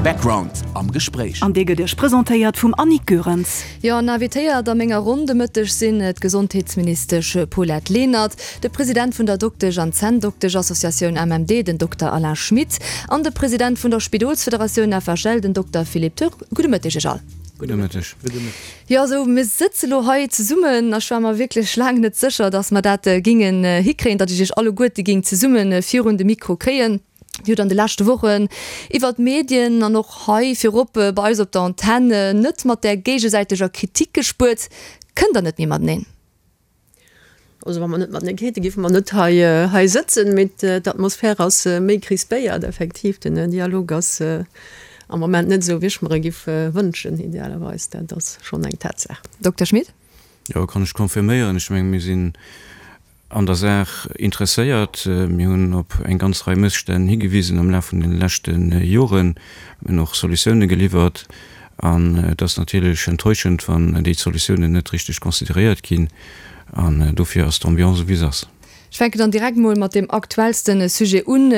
Background am Gespréich. An dee gëtt Iech presentéiert vum Annick Goerens. Jo, an invitéiert a menger Ronn de Mëtteg sinn d'Gesondheetsministesch Paulette Lenert, de President vun der Doktesch an Zänndoktesch-Associatioun MMD, den Dokter Alain Schmit, an de President vun der Spidolsfederatioun FHL, den Dokter Philippe Turk. Gudde Mëtteg Iech all. Gudde Mëtteg. Jo, esou, mir sëtze lo hei zesummen. Ech war mer wierklech laang net sécher, datt mer dat gingen hikréien, datt ech Iech alleguerte ging zesumme virun de Mikro kréien. Dir hutt an de leschte Wochen iwwer d'Medien an och hei virop bei eis op der Antenn net mat där géigesäiteger Kritik gespuert. Kënnt Der net méi mateneen? Also wa mer net matenee kéinten, géife mer net hei hei sëtzen. Mee d'Atmosphär ass méi crispéiert, effektiv. Den Dialog ass am Moment net esou, wéi ech mer e giff wënschen, idealerweis. Dat ass schonn eng Tatsaach. Dokter Schmit? Jo, kann ech confirméieren. Ech mengen, mir sinn an der Saach interesséiert. Mir hunn op eng ganz Rei Mësstänn higewisen am Laf vun de leschte Joren. Mir hunn och Solutioune geliwwert. An et ass natierlech enttäuschend, wann déi Solutiounen net richteg consideréiert ginn. An dofir ass d'Ambiance esou wéi se ass. Ech fänken dann direkt mol mat deem aktuellste Sujet un.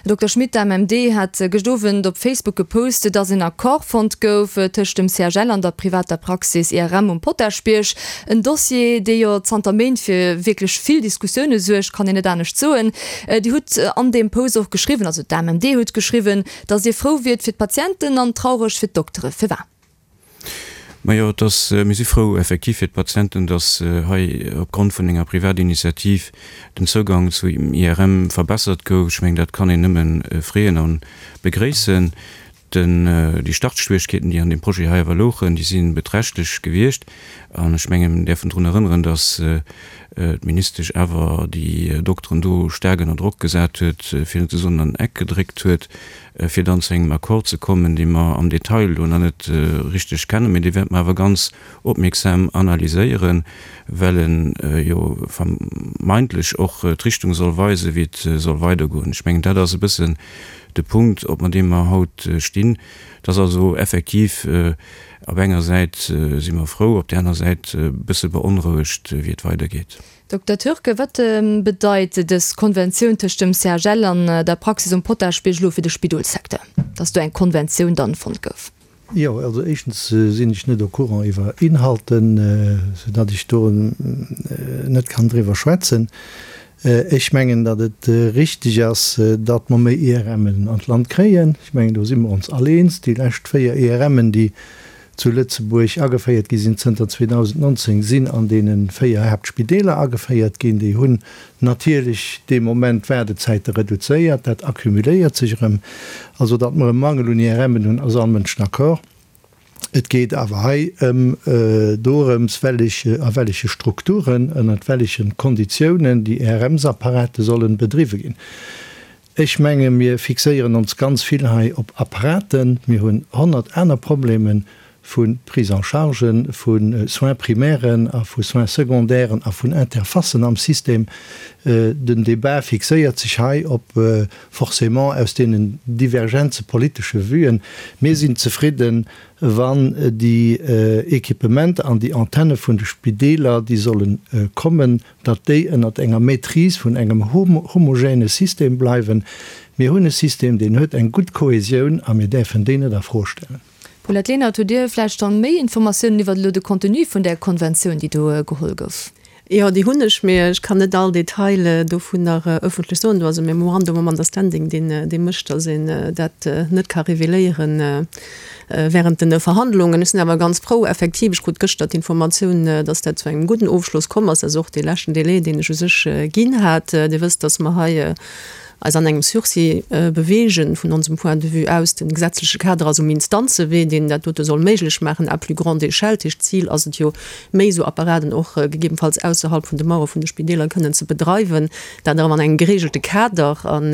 Dokter Schmit, d'AMMD hat gëscht Owend op Facebook gepost, dass en Accord fonnt gouf tëscht dem CHL an der privater Praxis IRM um Potaschbierg. En Dossier, dee jo zanter Méint fir wierklech vill Diskussioune suergt, kann een net anescht soen. Dir hutt an deem Post och geschriwwen, also d'AMMD huet geschriwwen, Datt Dir frou wiert fir d'Patienten an traureg fir d'Doktere. Firwat? Majo, et ass, mir si frou effektiv fir d'Patienten, datt hei opgrond vun enger Privatinitiativ den Zougang zu IRM verbessert gouf. Ech mengen, dat kann een nëmme freeën a begréissen. Den, déi Startschwierigkeeten, déi an deem Projet hei awer louchen, déi si beträchtlech gewiescht. An ech mengen, mir däerfen drun erënneren, datt d'Ministesch awer déi Dokteren do staark ënner Drock gesat huet, fir net ze soen an den Eck gedréckt huet, fir dann zu engem Accord ze kommen, dee mer am Detail elo nach net richteg kennen, mä dee wäerte mer awer ganz opmierksam analyséieren, well e jo vermeintlech och d'Richtung soll weisen, wéi et soll weidergoen. Ech mengen, dat ass e bëssen de Punkt, op mer deem mer haut stinn. Et ass also effektiv Op enger Säit si mer frou, op där aner Säit e bësse beonrouegt, wéi et weidergeet. Dokter Türke, wat bedeit dës Konventioun tëscht dem CHL an der Praxis um Potaschbierg elo fir de Spidolssecteur, dass do eng Konventioun dann fonnt gouf? Jo, also éischtens sinn ech net au courant iwwer Inhalten, soudatt ech do net kann driwwer schwätzen. Ech mengen, datt et richtig ass, datt mer méi IRMen an d'Land kréien. Ech mengen, do si mer ons all eens. Déi lescht 4 IRMen, déi zu Lëtzebuerg ageféiert gi sinn zënter 2019, sinn an deene 4 Haaptspideeler ageféiert ginn. Déi hunn natierlech dee Moment d'Waardezäite reduzéiert. Dat accumuléiert sech erëm. Also, datt mer e Mangel un IRMen hunn, ass all Mënsch d'accord. Et geet awer hei ëm dorëms, wellech, a welleche Strukturen, ënnert welleche Konditiounen déi IRMs-Apparate sollen bedriwwe ginn. Ech menge mir fixéieren ons ganz vill hei op Apparaten. Mir hunn 100 aner Probleme vu Prise en chargen, vu Soins primairen a vu Soins secondairen a vun Interfacen am System. Den Débat fixéiert sech hei op forcément aus deenen divergenze politesche Vuen. Mir sinn zefridden, wann déi Equipementer an déi Antenne vun de Spideeler, déi solle kommen, datt déi ënnert enger Maîtrise vun engem homogène System bleiwen. Mir hunn e System, deen huet eng gutt Kohesioun a mir däerfen déi net a Fro stellen. Paulette Lenert, Hutt Dir vläicht dann méi Informatiounen iwwert elo de Contenu vun där Konventioun, déi do geholl gouf? Jo, déi hunn ech, mee ech kann net all Detail dovunner ëffentlech soen. Do ass e Memorandum of Understanding, deen dee mécht, datt een dat net ka reveléiere während den Verhandlungen. Ech sinn awer ganz frou, effektiv, ech krut gëschter d'Informatioun, datt dat zu engem gudden Ofschloss komm ass. Dat ass och dee leschten Délai, deen ech u sech ginn hat. Dir wësst, datt mer hei eis an engem Sursis beweegen, vun onsem Point de vue aus. De gesetzleche Kader ass um Instanzewee, deen dat dote soll méiglech maachen à plus grande échelle. Dat heescht, d'Zil ass et jo, méi esou Apparaten och gegebenfalls ausserhalb vun de Mauere vun de Spideeler kënnen ze bedreiwen, dat awer an engem geregelte Kader. An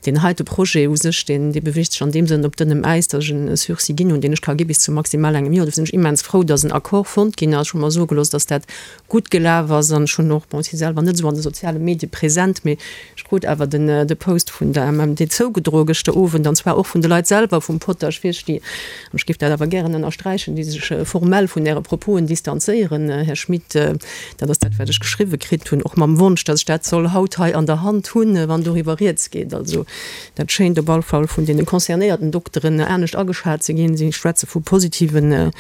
deen heite Projet u sech, deen, dee beweegt sech an deem Sënn op dënnem Äis, datt ech en Sursis ginn hunn, deen ech ka gi bis zu maximal engem Joer. Dofir sinn ech immens frou, datt en Accord fonnt ginn ass. Ech hu mer soe gelooss, datt dat gutt gelaf ass an ech hunn och, bon, ech si selwer net esou an de soziale Medie present, mee ech krut awer den. de Post vun der MMD zougedroe gëschter Owend, an zwar och vun de Leit selwer vum Potasch Wirschti. An ech géif dat awer gären ënnersträichen, déi sech formell vun Äre Proposen distanzéieren, Här Schmit. Dat ass dat, wat ech geschriwwe kritt hunn, och mam Wonsch, datt ech dat soll haut hei an der Hand hunn, wann doriwwer rieds geet. Also dat schéint op all Fall vun deene concernéierten Dokteren anescht ageschat ze ginn. Si schwätze vu positive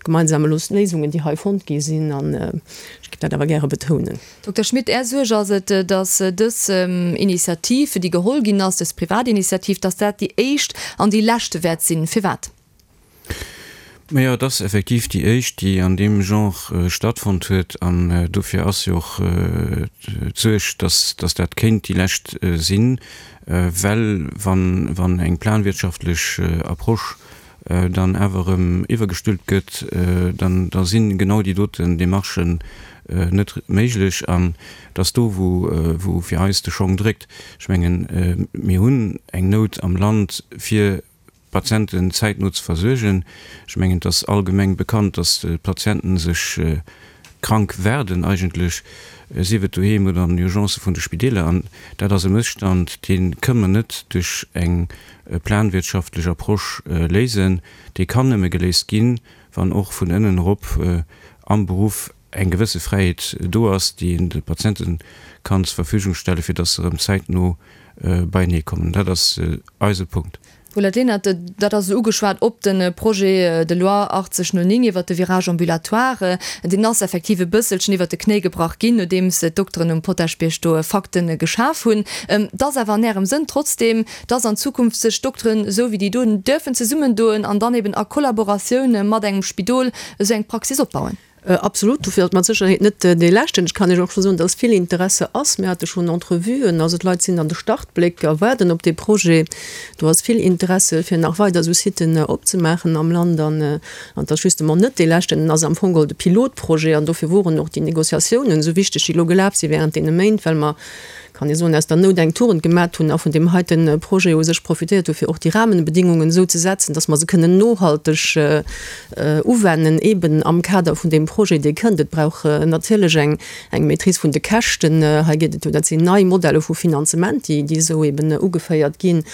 gemeinsame Léisungen, déi hei fonnt gi sinn. An ech géif dat awer gäre betounen. Dokter Schmit, Är Suerg ass et, datt dës Initiativ, déi geholl ginn ass, dës Privatinitiativ, datt dat déi éischt an déi leschte wäert sinn. Firwat? Majo, et ass effektiv déi éischt, déi an deem Genre stattfonnt huet. An dofir ass jo och d'Suerg, datt datt dat kéint déi lescht sinn, well wann wann eng planwirtschaftlech Approche dann awer erëm iwwergestülpt gëtt, dann da si genau déi doten Demarchen net méiglech. An et ass do, wou wou fir eis de Schong dréckt. Ech mengen, mir hunn eng Nout am Land fir d'Patienten zäitno ze versuergen. Ech mengen, et ass allgemeng bekannt, dass d'Patienten sech krank werden eigentlech, sief et doheem oder an den Urgencë vun de Spideeler. An dat ass e Mësstand, dee kënne mer net duerch eng planwirtschaftlech Approche léisen. Dee kann nëmme geléist ginn, wann och vun ënnen erop am Beruff eng gewësse Fräiheet do ass, déi een de Patiente kann zur Verfügung stellen, fir dass se erëm zäitno beienee kommen. Dat ass eise Punkt. Paulette Lenert, Dat ass ugeschwat op de Projet de loi 8009 iwwert de Virage ambulatoire. Deen ass effektiv e bësselchen iwwert de Knéi gebrach ginn, nodeems d'Dokteren um Potaschbierg do Fakte geschaf hunn. Et ass awer an Ärem Sënn trotzdeem, dass an Zukunft sech Dokteren esou wéi déi do dürfen zesummendoen an dann eben a Kollaboratioun mat engem Spidol esou eng Praxis opbauen? Absolut, dofir ass et mat Sécherheet net dee leschten. Ech kann Iech och scho soen, dass vill Interesse ass. Mir hate schonn Entrevuen, also d'Leit sinn an de Startbléck a waarden op dee Projet. Do ass vill Interesse fir nach weider esou Siten opzemaachen am Land. An et ass justement net dee leschten, en ass am Fong geholl de Pilotprojet. An dofir woren och déi Négociatiounen esou wichteg, déi elo gelaf si während deene Méint, well mer, kann ee soen, aus der Nout eng Tugend gemat hunn a vun deem heite Projet u sech profitéiert hu fir och déi Rahmenbedingungen esou ze setzen, dass mer se kënnen nohalteg uwennen, eben am Kader vun deem Projet, dee kënnt. Et brauch natierlech eng eng Maîtrise vun de Käschten. Hei geet et jo, dat sinn nei Modelle vu Finanzement, déi déi esou eben ugeféiert ginn.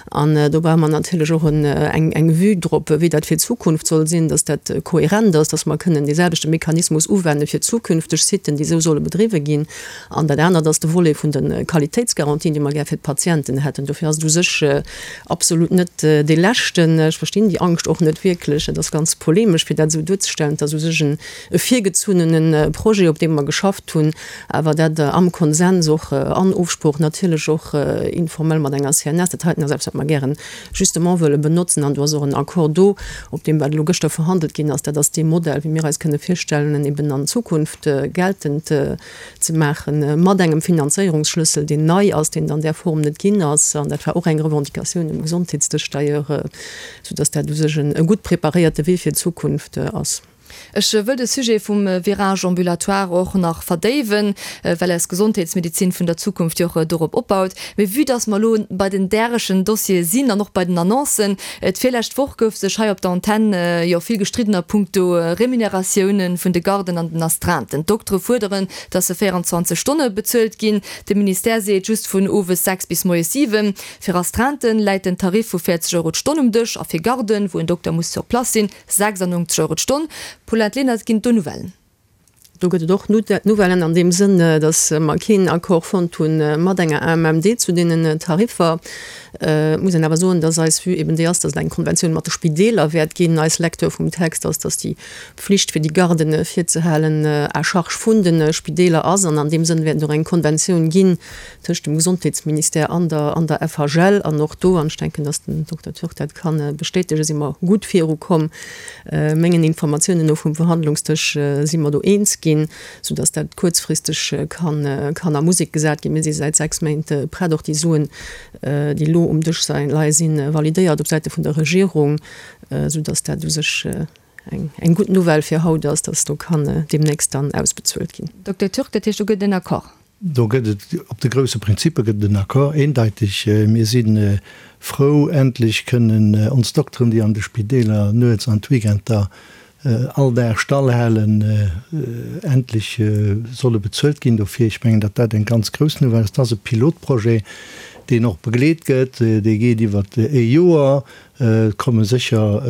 An do brauche mer natierlech och eng eng Vue drop, wéi dat fir d'Zukunft soll sinn, dass dat kohärent ass, dass mer kënnen deeselwechte Mechanismus uwenne fir zukünfteg Siten, déi esou solle bedriwwe ginn. An dat anert ass de Volet vun de Qualitéitsgarantien, déi mer gär fir d'Patienten hätten. Dofir ass et u sech absolut net dee leschten. Ech verstinn déi Angscht och net wierklech. Et ass ganz polemesch, fir dat esou duerzestellen. Et ass u sech e virgezunnene Projet, op deem mer geschafft hunn, awer dat am Konsens och an Ofsprooch natierlech och informell mat enger CNS. Dat heiten ass eppes, wat mer gären justement wëlle benotzen. An do ass och en Accord do, op deem wat elo gëschter verhandelt ginn ass. Dat ass dee Modell, wéi mir eis kënne virstellen, en eben an Zukunft geltend ze maachen, mat engem Finanzéierungsschlëssel, deen nei ass, deen et an där Form net ginn ass. An dat war och eng Revendicatioun um Gesondheetsdësch d'ailleurs, soudass dat u sech e gutt preparéierte Wee fir d'Zukunft ass. Ech wëll de Sujet vum Virage ambulatoire och nach verdéiwen, well eis Gesondheetsmedizin vun der Zukunft jo och dorop opbaut. Mee vue dass mer elo bei den därechen Dossiere sinn an och bei den Annoncen, D'virlescht Woch gouf sech hei op der Antenn jo vill gestridden a punkto Remuneratiounen vun de Garden an den Astreinten. D'Doktere fuerderen, datt se 24 Stonne bezuelt ginn. De Ministère seet just vun owes 6 bis moies 7. Fir Astreinten läit den Tarif vu 40 Euro d'Stonn um Dësch a fir Garden, wou en Dokter muss sur place sinn, 96 Euro d'Stonn. Paulette Lenert, Ginn et do Nouvellen? Do gëtt et och Nouvellen an deem Sënn, datt mer keen Accord fonnt hu mat enger AMMD zu deenen Tariffer. Et muss een awer soen, datt eis Vue eben déi ass, datt et eng Konventioun mat de Spideeler wäert ginn. Eis Lecture vum Text ass, datt déi Pflicht fir déi Garden virzehalen à charge vun de Spideeler ass. An an deem Sënn wäert et och eng Konventioun ginn tëscht dem Gesondheetsministère an der an der FHL. An och do, an ech denken, datt den Dokter Türk dat ka bestätegen, si mer gutt virukomm. Mengen Informatiounen no vum Verhandlungsdësch si mer do eens ginn, soudatt dat kuerzfristeg kann kann a Musek gesat ginn. Mir si säit 6 Méint prett, och déi Suen, déi elo um Dësch leie si validéiert op Säite vun der Regierung, soudatt dat u sech eng eng gutt Nouvelle fir haut ass, datt do kann deemnächst dann ausbezuelt ginn. Dokter Türk, dat heescht, do gëtt et en Accord? Do gëtt et, op de grousse Prinzippe gëtt et en Accord, eendeiteg. Mir si frou, endlech kënnen ons Dokteren, déi an de Spideeler nuets an d'Weekender all Dag stall halen, endlech solle bezuelt ginn dofir. Ech mengen, datt dat eng ganz grouss Nouvelle ass. Et ass e Pilotprojet. deen och begleet gëtt. Dee geet iwwer ee Joer. Et komme sécher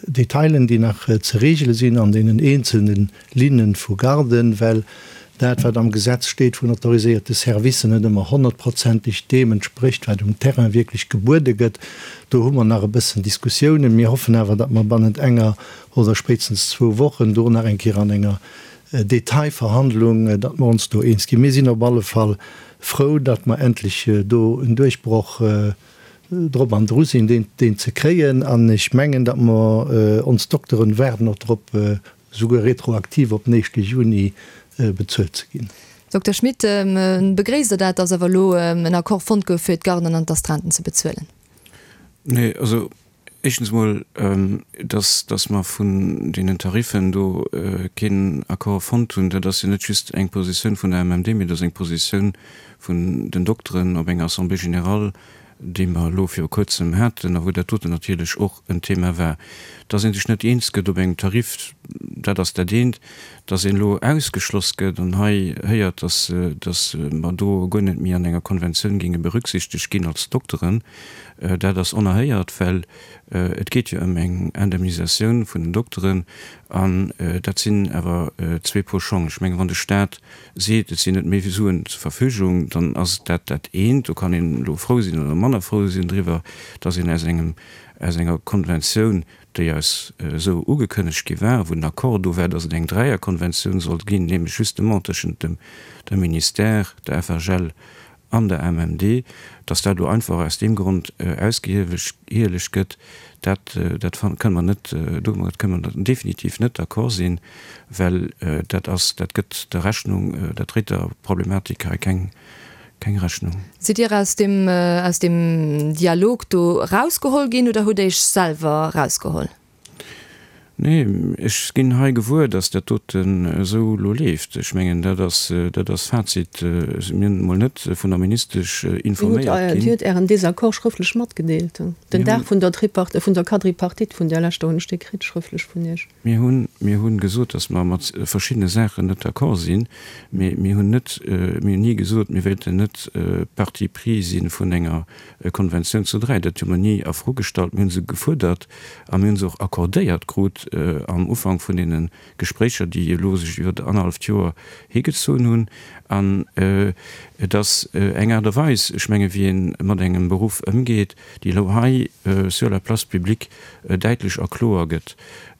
Detailen, déi nach ze regele sinn an deenen eenzelne Linne vu Garden, well dat, wat am Gesetz steet vun autoriséierte Servicen, net ëmmer honnertprozenteg deem entsprécht, wat um Terrain wierklech gebuede gëtt. Do hu mer nach e bëssen Diskussiounen. Mir hoffen awer, datt mer bannent enger oder spéitstens zwou Wochen do nach eng Kéier an enger Detailverhandlung, datt mer ons do eens ginn. Mir sinn op alle Fall frou, datt mer endlech do en Duerchbroch drop an dru sinn, deen ze kréien. An ech mengen, datt mer ons Dokteren waarden och drop, souguer retroaktiv op den éischte Juni bezuelt ze ginn. Dokter Schmit, begréisst Der dat, datt awer elo en Accord fonnt gouf, fir d'Garden an d'Astreinten ze bezuelen? Nee, also éischtens emol, datt, datt mer vun deenen Tariffen do keen Accord fonnt hunn, dat ass jo net just eng Positioun vun der MMD, mee dat ass eng Positioun vun den Dokteren op enger Assemblée générale, déi mer elo viru Kuerzem haten a wou dat doten natierlech och en Thema war. Dass ee sech net eens gëtt op engem Tarif, dat ass dat eent. Dass een elo ausgeschloss gëtt an hei héiert, dass, dass mer do guer net méi an enger Konventioun géinge berücksichtegt ginn als Dokteren, dat ass onerhéiert, well et geet jo ëm eng Indemnisatioun vun den Dokteren an dat sinn awer zwee Pol Schong. Ech mengen, wann de Stat seet, et sinn net méi Suen zur Verfügung, dann ass dat dat eent. Do kann een elo frou sinn oder manner frou sinn driwwer, dass een aus engem, aus enger Konventioun, déi eis esou ugekënnegt gi war, wou den Accord do war, dass et eng Dräierkonventioun sollt ginn, nämlech justement tëschent dem, dem Ministère, der FHL an der MMD, dass dat elo einfach aus deem Grond ausgehielegt gëtt, dat, dat kënne mer net, domat kënne mer definitiv net d'accord sinn, well dat ass, dat gëtt der Rechnung, dat dréit der Problematik hei keng, keng Rechnung. Sidd Dir aus deem, aus deem Dialog do erausgeholl ginn oder hutt Iech selwer erausgeholl? Nee, ech ginn hei gewuer, datt dat doten esou elo leeft. Ech mengen, dat ass, dat ass Fazit. Mir hunn emol net vun der Ministesch informéiert ginn. Dir hutt Ären Désaccord schrëftlech matgedeelt. Den Dag vun der Tripart-, vun der Quadripartite vun där leschter hunn ech dee kritt, schrëftlech vun Iech. Mir hunn, mir hunn gesot, datt mer mat verschiddene Saachen net d'accord sinn, mee mir hunn net, mir hunn ni gesot, mir wéilten net Partie prise si vun enger Konventioun zu 3, dat hu mer ni a Fro gestallt. Mir hu se gefuerdert a mir hu se och accordéiert krut am Ufank vun deene Gespréicher, déi elo sech iwwer annerhalleft Joer higezunn hunn. An et ass eng Aart a Weis, ech menge wéi ee mat engem Beruff ëmgeet, déi elo hei sur la place publique däitlech a kloer gëtt.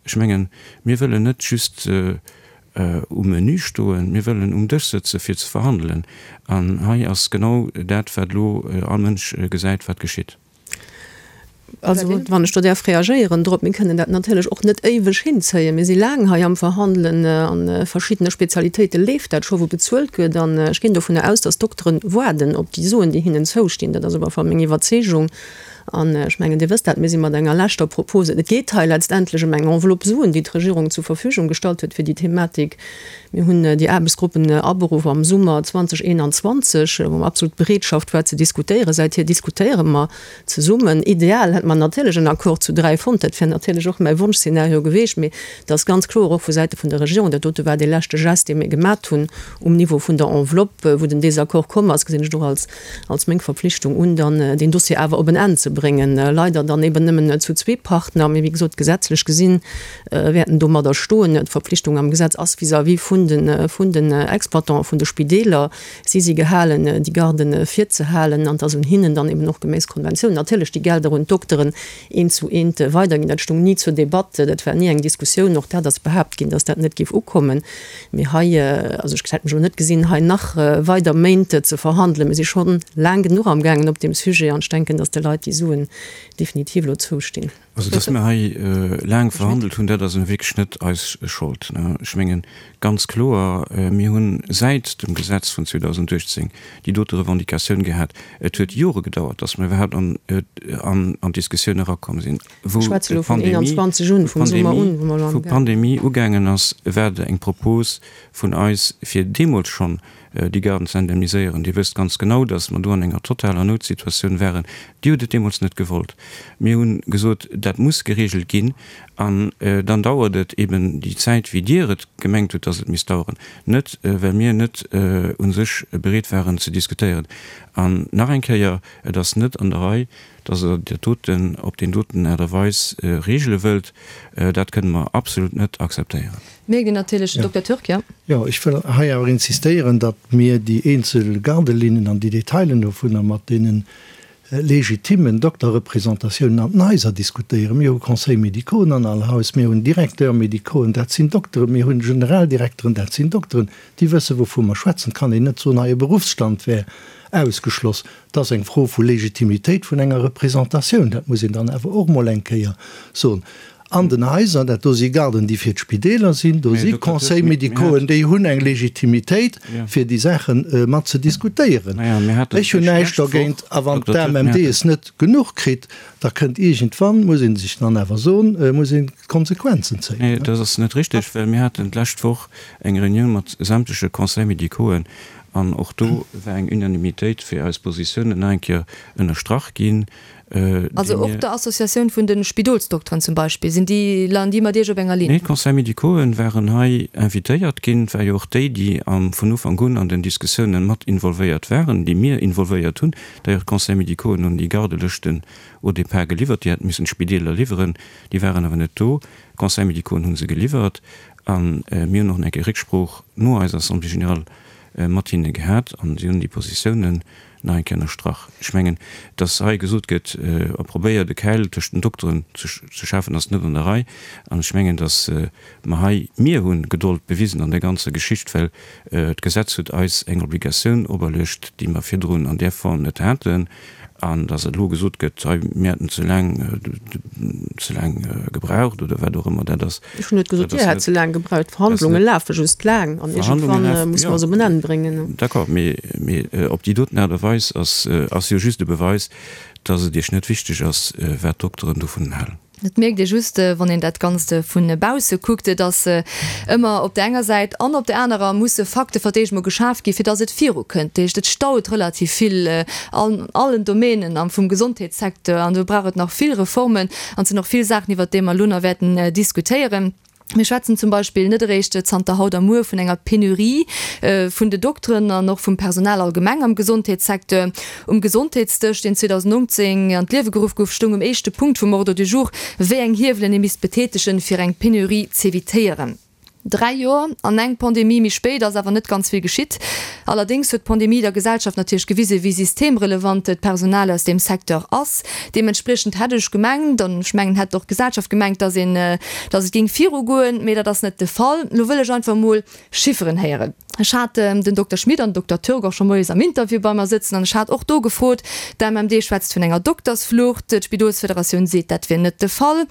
Ech mengen, mir wëllen net just um Menü stoen, mir wëllen um Dësch sëtze fir ze verhandelen. An hei ass genau dat, wat elo all Mënsch gesäit, wat geschitt. Also, wann ech do däerf reagéieren drop, Mir kënnen dat natierlech och net éiweg hinzéien. Mir si laang hei am Verhandelen. A verschiddene Spezialitéite leeft dat scho, wou bezuelt gëtt. An ech ginn dovunner aus, dass d'Dokteren waarden op déi Suen, déi hinnen zoustinn. Dat ass op alle Fall meng Iwwerzeegung. An ech mengen, Dir wësst dat, mir si mat enger leschter Propose, et geet hei letztendlech ëm eng Enveloppe Suen, déi d'Regierung zur Verfügung gestallt huet fir déi Thematik. Mir hunn déi Aarbechtsgruppen aberuff am Summer 2021, wou absolut d'Bereetschaft war ze diskutéieren. Säithier diskutéiere mer zesummen. Ideal hätte mer natierlech en Accord zu dräi fonnt, dat wär natierlech och mäi Wonschszenario geweecht. Mee et ass ganz kloer och vu Säite vun der Regierung, dat dote war dee leschte Gest, dee mir gemat hunn um Niveau vun der Enveloppe, wou den Désaccord komm ass, gesinn ech et och als als meng Verpflichtung un, dann deen Dossier awer op en Enn ze bréngen. Leider dann eben nëmmen zu zwee Partner, mee wéi gesot, gesetzlech gesinn wäerten domadder stoen. D'Verpflichtung am Gesetz ass vis-à-vis vun de vun den Exploitanten, vun de Spideeler. Si si gehalen, déi Garden virzehalen an et ass un hinnen dann eben och geméiss Konventioun natierlech déi Gelder un d'Dokteren eent zu eent weiderginn. Dat stoung ni zur Debatt, dat war ni eng Diskussioun. Och dat ass behaapt ginn, dass dat net géif ukommen. Mee hei, also ech hätt mech elo net gesinn, hei nach weider Méint ze verhandelen. Mir si scho laang genuch amgaangen op deem Sujet an ech denken, dass de Leit déi Suen definitiv elo zoustinn. Also, dass mir hei laang verhandelt hunn, dat ass elo wierklech net eis Schold. Ech mengen, ganz kloer, mir hu säit dem Gesetz vun 2018 déi dote Revendicatioun gehat. Et huet Jore gedauert, dass mir iwwerhaapt an d'Diskussioun erakomm sinn. Wou d'Pandemie ugaangen ass, war et eng Propos vun eis, fir deemools schonn. déi Garden ze indemniséieren. Dir wësst ganz genau, datt mer do an enger totaler Noutsituatioun waren. Dir hutt et deemools net gewollt. Mir hu gesot, dat muss geregelt ginn. An dann dauert et eben déi Zäit, wéi Dir et gemengt hutt, datt et misst daueren. Net, well mir net u sech bereet waren ze diskutéieren. An nach eng Kéier, Et ass net an der Rei, datt Der dat doten op deen doten Aart a Weis regele wëllt. Dat kënne mer absolut net akzeptéieren. Mierkt een natierlech, Dokter Türk, jo. Jo, ech wëll hei awer insistéieren, datt mir déi eenzel Gardelinnen an déi Detailen dovunner mat deene legitimmen Dokterrepresentatiounen an den Haiser diskutéieren. Mir hu Conseils médicauxen an all Haus, mir hunn Directeurs médicauxen, dat sinn Dokteren, mir hunn Generaldirekteren, dat sinn Dokteren, déi wësse wouvu mer schwätzen. Et kann een net soen, hei e Beruffsstand wär ausgeschloss. Et ass eng Fro vu Legitimitéit vun enger Representatioun, dat muss een dann awer och mol eng Kéier soen. An den Haiser, dat do si Garden, déi fir d'Spideeler sinn, do si Conseils médicauxen, déi hunn eng Legitimitéit, fir déi Saache mat ze diskutéieren. Ech hunn näischt dergéint. A wann d'AMMD es net genuch kritt, da kënnt iergendwann, muss ee sech dann awer soen, muss een d'Konsequenzen zéien. Nee, dat ass net richteg, well mir haten d'lescht Woch eng Reunioun mat sämtleche Conseils médicauxen an och do war eng Unanimitéit fir eis Positiounen nach eng Kéier ënnerstrach ginn. Also och der Associatioun vun de Spidolsdokteren zum Beispill, sinn déi, leien déi mat Iech op enger Linn? Nee, d'Conseils médicauxen waren hei invitéiert ginn. Et war jo och déi, déi am vun Ufank un an den Diskussiounen mat involvéiert waren, déi mir involvéiert hunn. D'ailleurs, d'Conseils médicauxen hunn déi Gardelëschten au départ geliwwert, déi hätte missen d'Spideeler liwweren, déi waren awer net do. D'Conseils médicauxen hu se geliwwert a mir hunn och nach eng Kéier Récksprooch no eiser Assemblée générale mat hinne gehat an si hunn déi Positiounen nach eng Kéier ënnerstrach. Ech mengen, dass hei gesot gëtt, a probéiert e Käil tëscht den Dokteren ze schafen, ass net an der Rei. An ech mengen, dass mer hei, mir hu Gedold bewisen an där ganzer Geschicht, well d'Gesetz huet eis eng Obligatioun operluecht, déi mer virdrun an där Form net haten. An dass elo gesot gëtt, hei, mir hätten ze laang, ze laang gebraucht oder wat och ëmmer dat ass. Ech hunn net gesot, Dir hätt ze laang gebraucht. D'Verhandlunge lafe just laang an iergendwann muss mer se op en Enn bréngen. D'accord, mee, mee op déi doten Aart a Weis ass, ass jo just e Beweis, dass et Iech net wichteg ass, wat d'Dokteren dovun halen. Et mierkt ee just, wann een dat Ganzt vu bausse kuckt, dass ëmmer op där enger Säit an op där anerer musse Fakte fir d'éischt mol geschaf ginn, fir dass et virukënnt. Dat heescht, et staut relativ vill an allen Domänen am vum Gesondheetssecteur an do brauch et nach vill Reformen an et sinn och vill Saachen, iwwert déi mer elo nach wäerten diskutéieren. Mir schwätzen zum Beispill net eréischt zanter haut a muer vun enger Penurie vun de Dokteren an och vum Personal allgemeng am Gesondheetssecteur. Um Gesondheetsdësch, deen 2019 an d'Liewe geruff gouf, stoung um éischte Punkt vum Ordre du jour, wéi eng Hiewelen ee misst betätegen, fir eng Penurie z'evitéieren. Dräi Joer an eng Pandemie méi spéit ass awer net ganz vill geschitt. Allerdéngs huet d'Pandemie der Gesellschaft natierlech gewisen, wéi systemrelevant d'Personal aus deem Secteur ass. Deementspriechend hätt ech gemengt, an ech mengen, hätt och d'Gesellschaft gemengt, dass een, dass et géing virugoen, mee dat ass net de Fall. Elo wëll ech einfach emol Chifferen héieren. Ech hat den Dokter Schmit an den Dokter Türk och scho moies am Interview bei mer sëtzen an ech hat och do gefrot, d'AMMD schwätzt vun enger Doktersflucht, d'Spidolsfederatioun seet, dat wier net de Fall.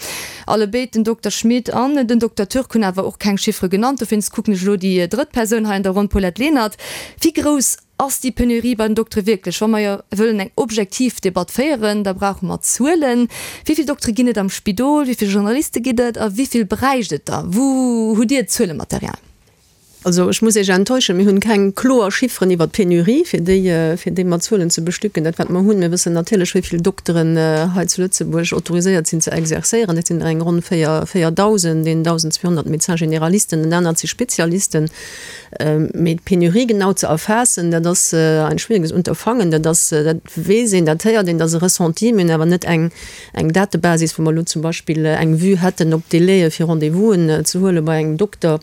Allebéid, den Dokter Schmit an den Dokter Türk, hunn awer och keng Chiffere genannt. Dowéinst kucken ech elo déi drëtt Persoun hei an der Ronn, Paulette Lenert. Wéi grouss Ass déi Penurie bei den Doktere wierklech? Wa mer jo wëllen eng objektiv Debatt féieren, da brauche mer Zuelen. Wéi vill Doktere ginn et am Spidol? Wéi vill Generaliste ginn et? A wéi vill bräicht et der? Wou hutt Dir d'Zuelematerial? Also ech muss Iech enttäuschen, mir hunn keng kloer Chifferen iwwert d'Penurie, fir déi, fir déi mat Zuelen ze bestücken. Dat wat mer hunn, mir wëssen natierlech wéi vill Dokteren hei zu Lëtzebuerg autoriséiert sinn ze exercéieren. Dat sinn der eng ronn 4, 4.000, 1.200 Médecins généralisten, en anert si Spezialisten. Mee d'Penurie genau ze erfaassen, dat ass ein schwieriges Unterfangen. Dat ass, dat weess een, dat héiert een, dat ass e Ressenti. Mir hunn awer net eng, eng Datebasis, wou mer elo zum Beispill eng Vue hätten op d'Délaie fir Rendez-vousen ze huele bei engem Dokter.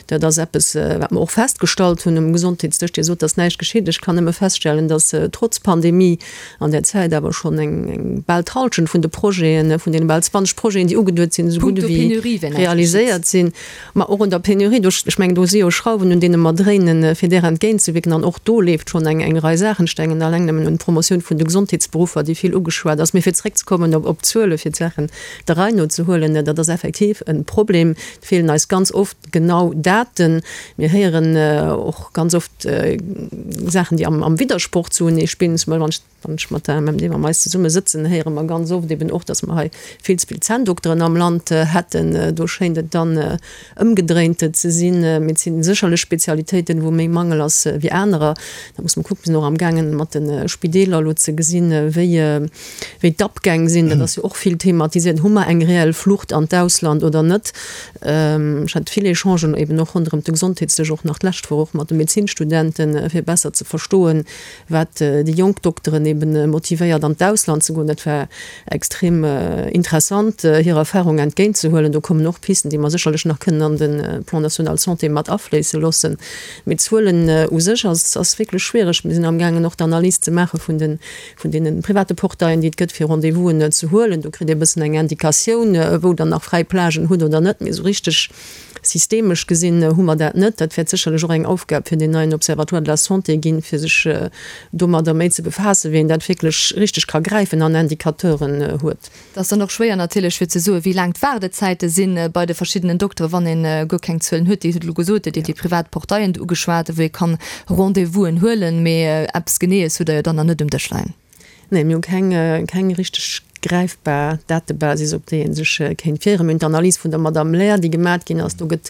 Dat ass eppes, wat mer och festgestallt hunn um Gesondheetsdësch. Dir sot, dass näischt geschitt. Ech kann nëmme feststellen, dass trotz Pandemie an där Zäit awer schonn eng, eng bal d'Hallschent vun de Projeten, vun deene bal 20 Projeten, déi ugeduet sinn, esou gutt Punkto ewéi Penurie wär näischt geschitt. realiséiert sinn. Ma och un der Penurie, do, ech mengen, do si jo Schrauwen, un deene mer dréinen, fir där entgéintzewierken. An och do leeft schonn eng, eng Rei Saachen. Ech denken alleng nëmmen un d'Promotioun vun de Gesondheetsberuffer, déi vill ugeschwat ass. Mee fir zréckzekommen op, op d'Zuele fir d'Saachen der Rei no ze huelen, dat ass effektiv e Problem. Et feelen eis ganz oft genau Daten. Mir héieren och ganz oft Saachen, déi am Widdersproch zu enee spillen. Zum Beispill, wann ech, wann ech mat der MMD, mam eis zesumme sëtzen, héiere mer ganz oft eben och, datt mer hei vill ze vill Zänndokteren am Land hätten. Do schéint et dann ëmgedréint ze sinn. Mee et si sécherlech Spezialitéiten, wou méi Mangel ass wéi anerer. Da muss mer kucken, mir sinn och amgaangen, mat de Spideeler elo ze gesinn, wéi, wéi d'Abgäng sinn. Dat ass jo och vill thematiséiert. Hu mer eng reell Flucht an d'Ausland oder net? Ech hat vill Echangen eben och ronderëm de Gesondheetsdësch, och nach d'lescht Woch och mat de Medezinstudenten, fir besser ze verstoen, wat déi jonk Dokteren eben motivéiert an d'Ausland ze goen. Dat war extrem interessant, hir Erfahrung entgéintzehuelen. Do kommen och Pisten, déi mer sécherlech nach kënnen an de Plan national santé mat afléisse loossen. Mee d'Zuelen u sech ass, ass wierklech schwiereg. Mir sinn amgaangen och d'Analys ze maache vun de vun deene private Portaillen, déi et gëtt, fir Rendez-vousen ze huelen. Do kritt ee e bëssen eng Indikatioun, wou Der nach fräi Plagen hutt oder net. Mee esou richteg systemesch gesinn hu mer dat net. Dat wäert sécherlech och eng Aufgab fir deen neien Observatoire de la santé ginn, fir sech domadder méi ze befaassen, wéi een dat wierklech richteg ka gräifen an Indicateuren huet. Et ass dann och schwéier natierlech fir ze soen, wéi laang d'Waardezäite si bei de verschiddenen Dokteren, wann ee guer keng Zuelen huet. Dir hutt elo gesot, Dir hutt déi privat Portaillen do ugeschwat, wou ee kann Rendez-vousen huelen, mee eppes Geneeës hutt Der jo dann nach net um Dësch leien. Nee, mir hu keng, keng richteg gräifbar Datebasis, op déi ee sech kéint fieren. Mir hunn d'Analys vun der Madame Lair, déi gemat ginn ass. Do gëtt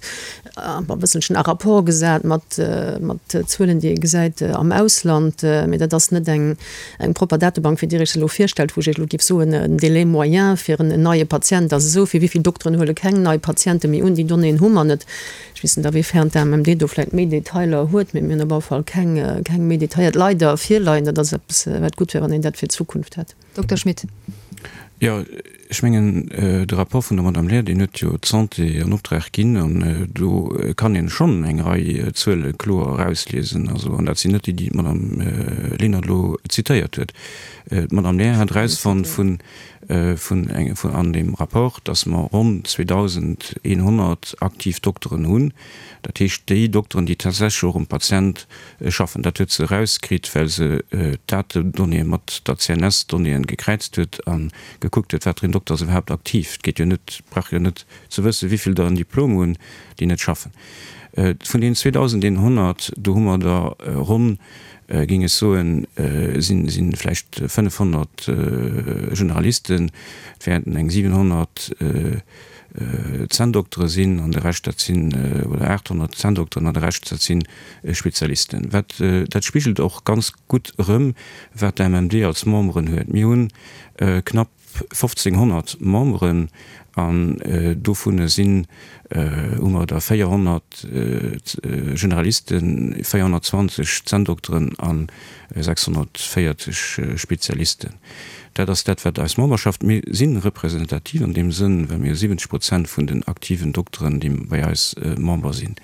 e bësselchen à rapport gesat mat, mat Zuelen, déi ee gesäit am Ausland. Mee dat ass net eng, eng propper Datebank, wéi Dir Iech se elo virstellt, wou ech Iech elo géif soen, den Délai moyen fir en neie Patient ass esou vill, wéi vill Dokteren huele keng nei Patiente méi un, déi Donnéeën hu mer net. Ech weess net, awéifern d'AMMD do vläicht méi Detailer huet, mee mir hunn op alle Fall keng, keng méi detailléiert leider virleien. Dat ass eppes, wat gutt wär, wann een dat fir d'Zukunft hätt. Dokter Schmit. Jo, ech mengen, de Rapport vun der Madame Lair, deen huet jo d'Santé an Optrag ginn an do kann een schonn eng Rei Zuele kloer erausliesen. Also, an dat sinn net déi, déi d'Madame Lenert elo zitéiert huet. D'Madame Lair hat erausfonnt vun, vun eng, vun an deem Rapport, dass mer ronn 2.100 aktiv Dokteren hunn. Dat heescht, déi Dokteren, déi tatsächlech och um Patient schaffen. Dat huet se erauskritt, well se d'Datedonnéeë mat der CNS-Donnéeën gekräizt huet a gekuckt huet, wat fir een Dokter ass iwwerhaapt aktiv. Et geet jo net, brauch jo net ze wëssen, wéi vill der en Diplom hunn, déi net schaffen. Vun deenen 2.100, do hu mer der ronn, géing ech soen, si vläicht 500 Generalisten, et wäerten eng 700 Zänndoktere sinn an de Rescht dat sinn, oder 800 Zänndokteren an de Rescht dat si Spezialisten. Wat, dat spigelt och ganz gutt erëm, wat d'AMMD als Memberen huet. Mir hunn knapp 1.500 Memberen an dovunner sinn, hu mer der 400 Generalisten, 420 Zänndokteren a 640 Spezialisten. Dat ass dat, wat eis Memberschaft, mir si representativ an deem Sënn, well mir 70 Prozent vun den aktiven Dokteren, déi bei eis Member sinn.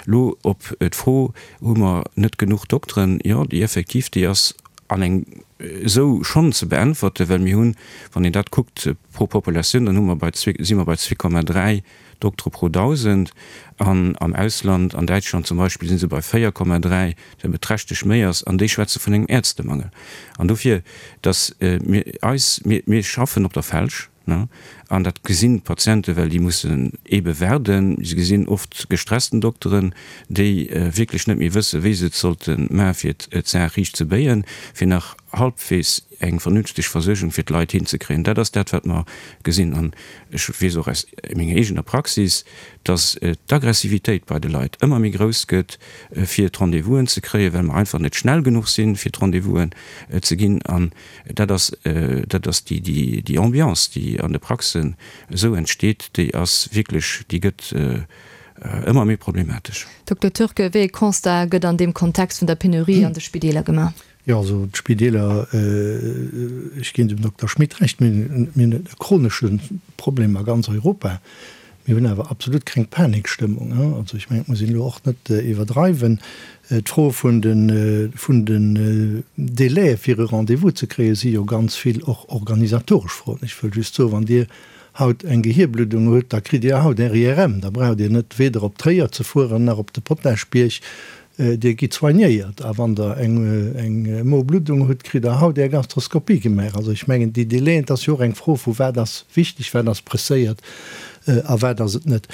Elo op d'Fro, Hu mer net genuch Dokteren? Jo, déi effektiv, déi ass an eng esou schonn ze beäntwerten, well mir hunn, wann een dat kuckt pro Populatioun, dann hu mer bei zwee, si mer bei 2,3 Doktere pro 1.000 an am Ausland, an Däitschland zum Beispill, si se bei 4,3, wat beträchtlech méi ass, an déi schwätze vun engem Ärztemangel. An dofir, datt mir eis, mir, mir schaffen op der Felsch, ne, an dat gesinn d'Patienten, well déi mussen eebe waarden. Se gesinn oft gestressten Dokteren, déi wierklech net méi wëssen, wéi se et sollte maachen, fir d'Saach riicht ze béien, fir nach halbwegs eng vernünfteg Versuergung fir d'Leit hinzekréien. Dat ass dat, wat mer gesinn. An ech weess och aus menger eegener Praxis, dass d'Aggressivitéit bei de Leit ëmmer méi grouss gëtt, fir d'Rendez-vousen ze kréien, well mer einfach net schnell genuch sinn, fir d'Rendez-vousen ze ginn. An dat ass, dat ass déi, déi, déi Ambiance, déi an de Praxen esou entsteet, déi ass wierklech, déi gëtt ëmmer méi problematesch. Dokter Turk, wéi ee Constat gëtt an deem Kontext vun der Penurie an de Spideeler gemaach? Jo, also d'Spideeler, ech ginn dem Dokter Schmit Recht, mir hunn e chronesche Problem a ganz Europa. Mir hunn awer absolut keng Panikstëmmung. Also ech mengen, et muss een elo och net iwwerdreiwen. D'Fro vun de vun den Délaië fir e Rendez-vous ze kréien, si jo ganz vill och organisatoresch Froen. Ech wëll just soen, wann Dir haut eng Gehierbluddung hutt, da kritt Dir haut Är IRM. Da braucht Dir net weder op Tréier ze fueren nach op de Potaschbierg. Dir gitt soignéiert a wann Der eng Mobluddung hutt, kritt Der haut Är Gastroskopie gemaach. Also ech mengen, déi Délaiën, et ass jo och eng Fro vu wat ass wichteg, wat ass presséiert a wat ass et net.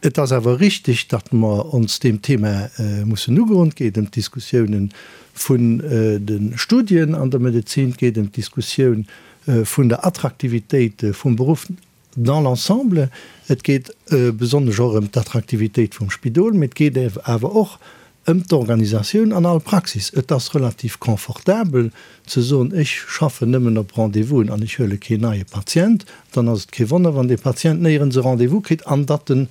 Et ass awer richtig, datt mer ons deem Thema mussen ugoen. Et geet ëm d'Diskussiounen vun de Studien an der Medezin, et geet ëm d'Diskussioun vun der Attraktivitéit vum Beruff dans l'ensemble, et geet besonnesch och ëm d'Attraktivitéit vum Spidol, mee et geet awer och ëm d'Organisatioun an all Praxis. Et ass relativ confortabel ze soen, ech schaffen nëmmen op Rendez-vousen an ech huele keen neie Patient. Dann ass et kee Wonner, wann dee Patient néierens e Rendez-vous kritt an datt en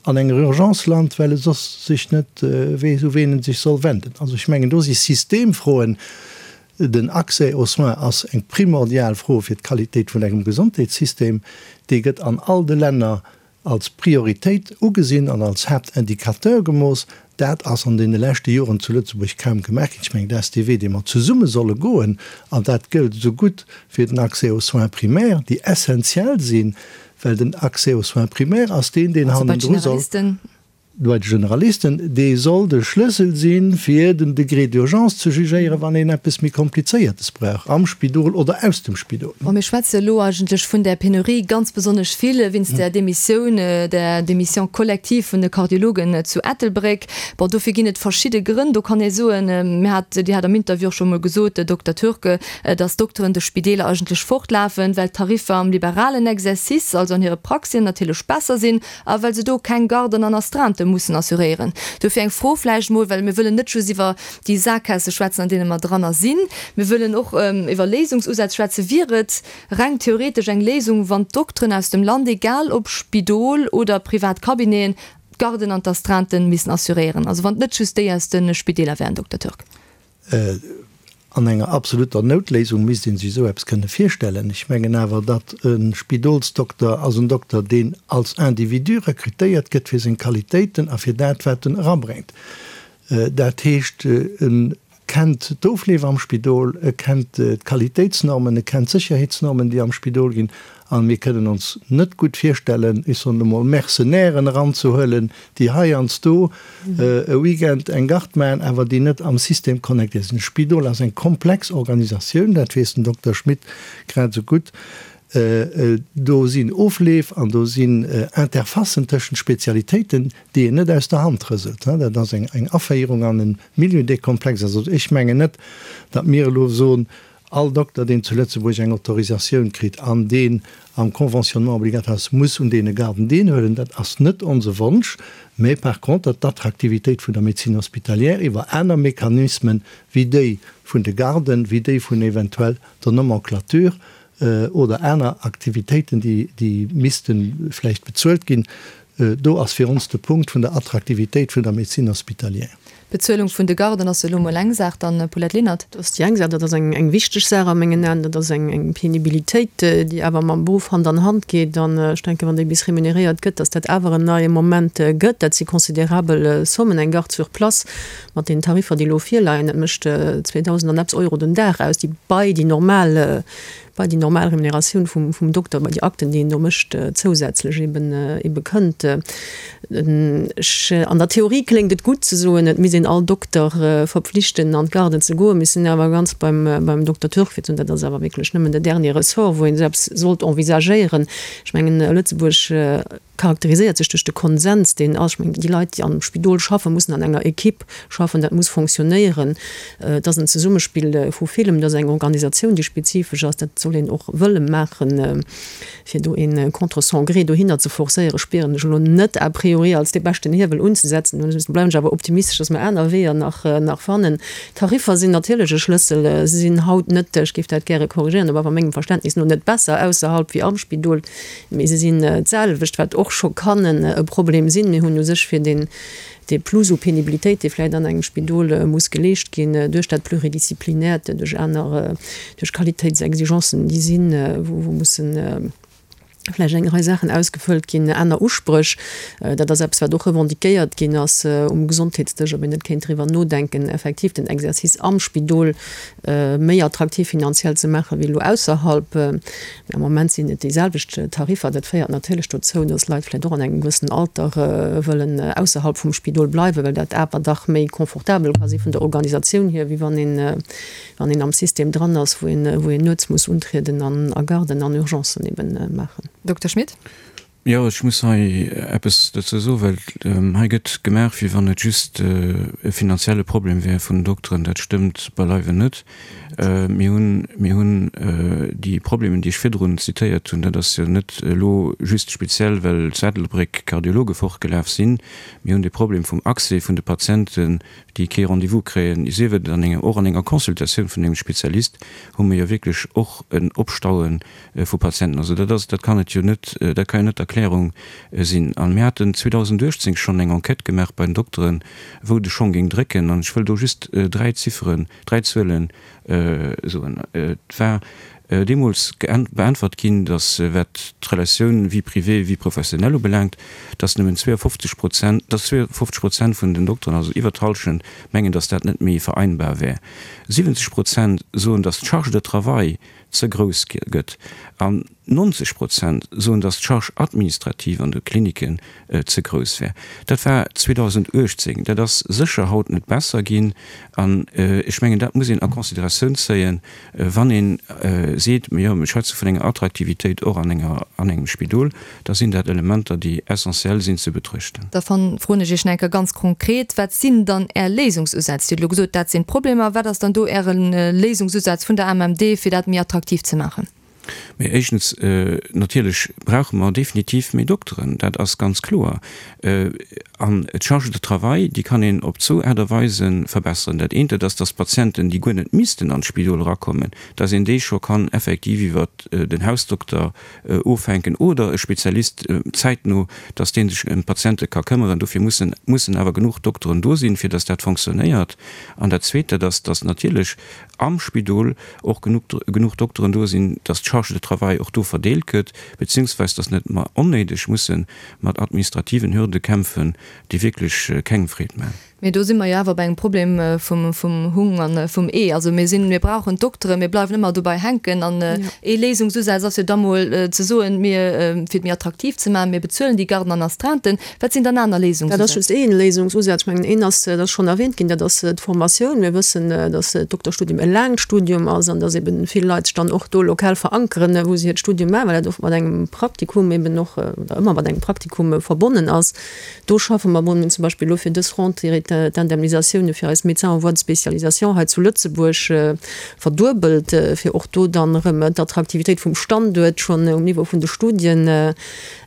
an enger Urgence lant, well e soss sech net weess, u ween en sech soll wenden. Also ech mengen, do si Systemfroen. Den Accès aux soins ass eng primordial Fro fir d'Qualitéit vun engem Gesondheetssystem. Dee gëtt an all de Länner als Prioritéit ugesinn an als Haaptindicateur gemooss. Dat ass an deene leschte Joren zu Lëtzebuerg kaum gemaach ginn. Ech mengen, dat ass dee Wee, dee mer zesumme solle goen. An dat gëllt esou gutt fir den Accès aux soins primaires, déi essenziell sinn, well den Accès aux soins primaires ass deen, deen hannendru soll. Bei de Generalisten, dee soll de Schlëssel sinn, fir den Degré d'urgence ze jugéieren, wann een eppes méi Komplizéiertes brauch, am Spidol oder aus dem Spidol. Bon, mir schwätze elo eigentlech vun där Penurie ganz besonnesch vill wéinst där Demissioun, där Démission collective vun de Kardiologen zu Ettelbréck. Bon, dofir ginn et verschidde Grënn. Do kann ee soen, mir hat, Dir hat am Interview och scho mol gesot, Dokter Turk, dass d'Dokteren de Spideeler eigentlech fortlafen, well d'Tariffer am liberalen Exercice, also an hire Praxien, natierlech besser sinn. A well se do keng Garden an Astreintë mussen assuréieren. Dofir eng Fro vläicht emol, well mir wëllen net just iwwer déi Sakgaasse schwätzen, an deene mer dranner sinn, mir wëllen och iwwer Léisungsusätz schwätzen. Wier et reng theoretesch eng Léisung, wann d'Dokteren aus dem Land, egal ob Spidol oder privat Cabineten, d'Garden an d'Astreintë missen assuréieren? Also wann et net just déi aus de Spideeler wären, Dokter Turk. An enger absoluter Noutléisung misst ee sech esou eppes kënne virstellen. Ech mengen awer, datt e Spidolsdokter ass en Dokter, deen als Individu rekrutéiert gëtt fir seng Qualitéiten a fir dat, wat en erabréngt. Dat heescht, e kennt d'Ofleef am Spidol, e kennt d'Qualitéitsnormen, e kennt d'Sécherheetsnormen, déi am Spidol ginn. A mir kënnen ons net gutt virstellen, ech soen emol, Mercenairen eranzehuelen, déi heiansdo e Weekend eng Garde maachen, awer déi net am System connectéiert sinn. De Spidol ass eng komplex Organisatioun, dat weess den Dokter Schmit grad esou gutt. Do sinn Ofleef an do sinn Interfacen tëschent Spezialitéiten, déi een net aus der Hand rëselt. Dat ass eng Aféierung an e Milieu, dee komplex ass. Also ech mengen net, datt mir elo soen, All Dokter, deen zu Lëtzebuerg eng Autorisatioun kritt an deen am Conventionnement obligatoire ass, muss un deene Garden deelhuelen. Dat ass net onse Wonsch, mä par contre d'Attraktivitéit vun der Médecine hospitalière iwwer aner Mechanismen wéi déi vun de Garden, wéi déi vun eventuell der Nomenclature oder aner Aktivitéiten, déi misste vläicht bezuelt ginn, Do ass fir ons de Punkt vun der Attraktivitéit vun der Médecine hospitalière. D'Bezuelung vun de Garden ass elo mol eng Saach. Dann, Paulette Lenert. Dat ass déi eng Saach. Dat ass eng wichteg Saach a mengen Aen. Dat ass eng Penibilitéit, déi awer mam Beruff Hand an Hand geet. An ech denken, wann déi bis remuneréiert gëtt, dass dat awer en neie Moment gëtt. Dat si considerabel Sommen. Eng Garde sur place mat deenen Tariffer, déi elo virleien, dat mécht 2.000 an eppes Euro den Dag aus, déi bei déi normal bei déi normal Remuneratioun vum Dokter, bei déi Akten, déi en do mécht, zousätzlech eben ebe kënnt. Ech, an der Theorie kléngt et gutt ze soen, et misst een all Dokter verpflichten an d'Garden ze goen. Mir sinn awer ganz beim, beim Dokter Turk fir ze soen, dat ass awer wierklech nëmmen de dernier Ressort, wou een esou eppes sollt envisagéieren. Ech mengen, Lëtzebuerg, charakteriséiert sech duerch de Konsens, deen ass. Ech mengen, déi Leit, déi am Spidol schaffen, mussen an enger Equipe schaffen, dat muss fonctionnéieren. Et ass en Zesummespill vu villem, et ass eng Organisatioun, déi spezifesch ass. Dat soll een och wëlle maachen. Fir do ee contre son gré dohinner ze forcéieren, spieren ech elo net a priori als dee beschten Hiewel unzesetzen. Do bleiwen ech awer optimistesch, dass mer aner Weeër nach fannen. D'Tariffer sinn natierlech e Schlëssel. Se sinn haut net, ech géif dat gäre korrigéieren, op awer mengem Verständnis no, net besser ausserhalb wéi am Spidol. Mee se sinn d'selwecht, wat och scho kann e Problem sinn. Mir hunn u sech fir deen, dee Plus u Penibilitéit, dee vläicht an engem Spidol muss geleescht ginn, duerch dat Pluridisziplinäert, duerch aner, duerch Qualitéitsexigencen, déi sinn, wou mussen vläicht eng Rei Saachen ausgefëllt ginn, aner Uspréch. Dat ass eppes, wat och revendiquéiert ginn ass um Gesondheetsdësch, ob een net kéint driwwer nodenken, effektiv den Exercice am Spidol méi attraktiv finanziell ze maachen, wéi elo ausserhalb. Mee am Moment sinn et déi selwecht Tariffer. Dat féiert natierlech dozou, datt Leit vläicht och an engem gewëssenen Alter wëllen ausserhalb vum Spidol bleiwen, well dat awer dach méi confortabel ka si vun der Organisatioun hier, wéi wann een, wann een am System dran ass, wou een, wou een nuets muss untrieden an a Garden an Urgencen eben maachen. Dokter Schmit. Jo, ech muss hei eppes dozou soen, well hei gëtt gemaach, wéi wann et just e finanzielle Problem wär vun den Dokteren. Dat stëmmt beileiwen net. Mir hunn, mir hunn déi Problemen, déi ech virdrun zitéiert hunn, dat ass jo net elo just speziell, well zu Ettelbréck Kardiologe fortgelaf sinn. Mir hunn de Problem vum Accès vun de Patienten, déi kee Rendez-vous kréien, sief et an enger, och an enger Consultatioun vun engem Spezialist hu mir jo wierklech och en Opstaue vu Patienten. Also dat ass, dat kann et jo net, dat ka jo net d'Erklärung sinn. A mir haten 2018 schonn eng Enquête gemaach bei den Dokteren, wou de Schong géing drécken. An ech wëll do just dräi Zifferen, dräi Zuele soen. Et war deemools beäntwert ginn, datt, wat d'Relatioun Vie privée, vie professionnelle ubelaangt, datt nëmmen 52 Prozent, datt 52 Prozent vun den Dokteren, also iwwer d'Hallschent, mengen, datt dat net méi vereinbar wär. 70 Prozent soen, datt d'Charge de travail ze grouss gëtt an 90 Prozent soen, datt d'Charge administrative an de Kliniken ze grouss wär. Dat war 2018. Dat ass sécher haut net besser ginn. An ech mengen, dat muss een a Consideratioun zéien, wann ee seet, jo, mir schwätze vun enger Attraktivitéit och an enger, an engem Spidol, da sinn dat Elementer, déi essentiell sinn ze betruechten. Da froen ech Iech nach eng Kéier ganz konkret, Wat sinn dann Är Léisungsusätz? Dir hutt elo gesot, dat sinn d'Problemer. Wat ass dann do Äre Léisungsusaz vun der AMMD, fir dat méi attraktiv ze maachen? Mee éischtens, natierlech brauche mer definitiv méi Dokteren, dat ass ganz kloer. An d'Charge de travail, déi kann een op zwou Aart a Weise verbesseren. Dat eent, dat ass, dass d'Patienten, déi guer net missten an d'Spidol erakommen, dass een déi scho kann effektiv iwwert den Hausdokter ofhänken oder e Spezialist zäitno, dass dee sech ëm d'Patiente ka këmmeren. Dofir mussen mussen awer genuch Dokteren do sinn, fir dass dat fonctionnéiert. An dat Zweet, dat ass, dass natierlech am Spidol och genuch genuch Dokteren do sinn, dass d'Charge de travail och do verdeelt gëtt, beziehungsweis dass net mer onnéideg musse mat administrativen Hürde kämpfen, déi wierklech kengem Freed maachen. Mee do si mer jo awer bei engem Problem vum Hung a vum Ee. Also mir sinn, mir brauchen d'Doktere, mir bleiwen ëmmer dobei hänken. An ee Léisungsusaz ass jo da mol ze soen, mir, fir et méi attraktiv ze maachen, mir bezuelen déi Garden an Astreinten. Wat sinn dann aner Léisungsusätz? Dat ass just ee Léisungsusaz. Ech mengen, een ass, dat ass schonn erwähnt ginn, dat ass d'Formatioun. Mir wëssen, dass d'Dokterstudium e laangt Studium ass an dass eben vill Leit sech dann och do lokal verankeren, wou se hiert Studium maachen, well dat oft mat engem Praktikum eben och, oder ëmmer mat engem Praktikum verbonnen ass. Do schaffe mer bon, mir hunn zum Beispill elo fir dës Rentrée d'Indemnisatioune fir eis Médecins en voie de spécialisation hei zu Lëtzebuerg verduebelt, fir och do dann erëm d'Attraktivitéit vum Standuert schonn um Niveau vun de Studien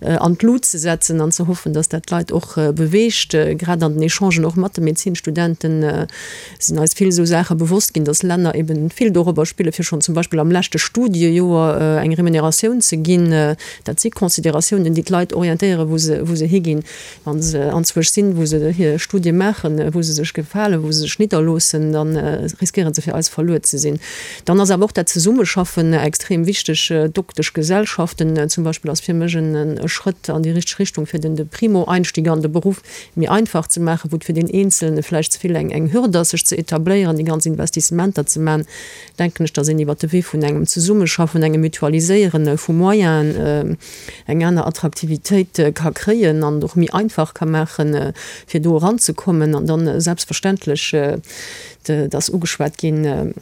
an d'Lut ze setzen an ze hoffen, dass dat d'Leit och beweegt. Grad an den Echangen och mat de Medezinstudenten sinn eis vill esou Saache bewosst ginn, dass Länner eben vill dorobber spille fir schonn zum Beispill am leschte Studiejoer eng Remuneratioun ze ginn. Dat si Consideratiounen, déi d'Leit orientéieren, wou se, wou se higinn, wa se anzwousch sinn, wou se hir Studie maachen, wou se sech gefalen, wou se sech nidderloossen, da riskéiere se fir eis verluer ze sinn. Dann ass awer och dat Zesummeschaffen extrem wichteg. D'Dokteschgesellschaften zum Beispill ass fir mech e Schrëtt an déi richteg Richtung, fir den de Primo-Einstieg an de Beruff méi einfach ze maachen, wou et fir deen Eenzelne vläicht ze vill eng eng Hürd ass, sech ze etabléieren, déi ganz Investissementer ze maachen, denken ech, dass een iwwert de Wee vun engem Zesummeschaffen, engem Mutualiséiere vu Moyenen eng aner Attraktivitéit ka kréien an et och méi einfach ka maachen, fir do eranzekommen. An dann selbstverständlech, et ass ugeschwat ginn,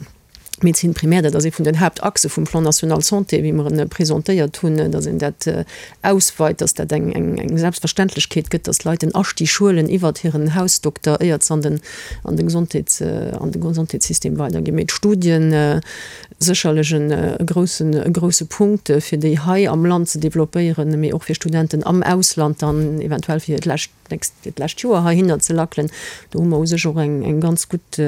D'Médecine primaire, dat ass ee vun den Haaptachse vum Plan national santé, wéi mer en presentéiert hunn, dass een dat ausweit, dass dat eng eng Selbstverständlechkeet gëtt, dass d'Leit en Astig huelen iwwert hiren Hausdokter, éiert se an den an de Gesondheets an de Gesondheetssystem weiderginn. Mee d'Studien, sécherlech e groussen e grousse Punkt, fir déi hei am Land ze developpéieren, mee och fir Studenten am Ausland dann eventuell fir hiert lescht nächst fir d'lescht Joer heihinner ze lackelen. Do hu mer u sech och eng eng ganz gutt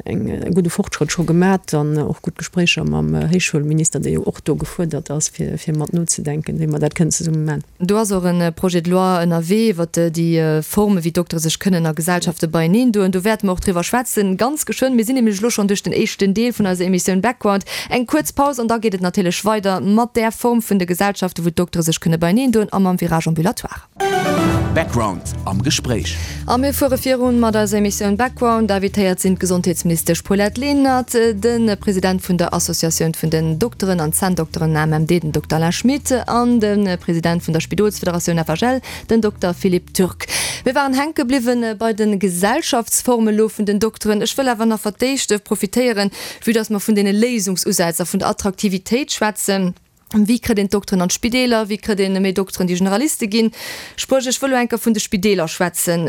eng e gudde Fortschrëtt scho gemat an och gutt Gespréicher mam Héichschoulminister, dee jo och do gefuerdert ass, fir fir mat nozedenken, wéi mer dat kënnen zesumme man. Do ass och e Projet de loi ënnerwee iwwert déi Forme wéi d'Doktere sech kënnen a Gesellschafte beieneen doen. Do wäerte mer och driwwer schwätzen, ganz geschwënn. Mir sinn nämlech elo schonn duerch den éischten Deel vun eiser Emissioun Background. Eng kuerz Paus an da geet et natierlech weider mat där Form vun de Gesellschaften, wou d'Doktere sech kënne beieneen doen a mam Virage ambulatoire. Background am Gespréich. A mir fuere virun mat eiser Emissioun Background. Invitéiert sinn d'Gesondheetsministesch Paulette Lenert, de President vun der Associatioun vun den Dokteren an Zänndokteren AMMD, den Dokter Alain Schmit, an de President vun der Spidolsfederatioun FHL, den Dokter Philippe Turk. Mir waren hänke bliwwen bei de Gesellschaftsforme lo vun den Dokteren. Ech wëll awer nach fir d'éischt profitéieren, vue dass mer vun deene Léisungsusätz a vun der Attraktivitéit schwätzen. Wéi kritt een d'Dokteren an d'Spideeler? Wéi kritt een méi Dokteren, déi Generaliste ginn? Spréch, ech wëll elo eng Kéier vun de Spideeler schwätzen.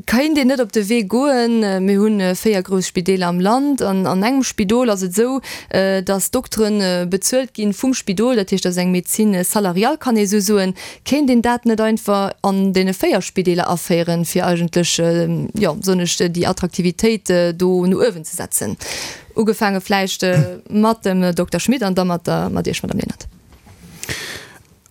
Kéint een net op de Wee goen, mir hu 4 grouss Spideeler am Land, an an engem Spidol ass et esou, datt d'Doktere bezuelt gi vum Spidol, dat heescht, dat ass eng Médecine salariale, kann ee esou soen. Kéint een dat net einfach an deene 4 Spideeler aféieren, fir eigentlech, jo, soen ech, déi Attraktivitéit do no uewen ze setzen? Ugefaange vläicht mat dem Dokter Schmit an da mat der, mat Iech, Madame Lenert.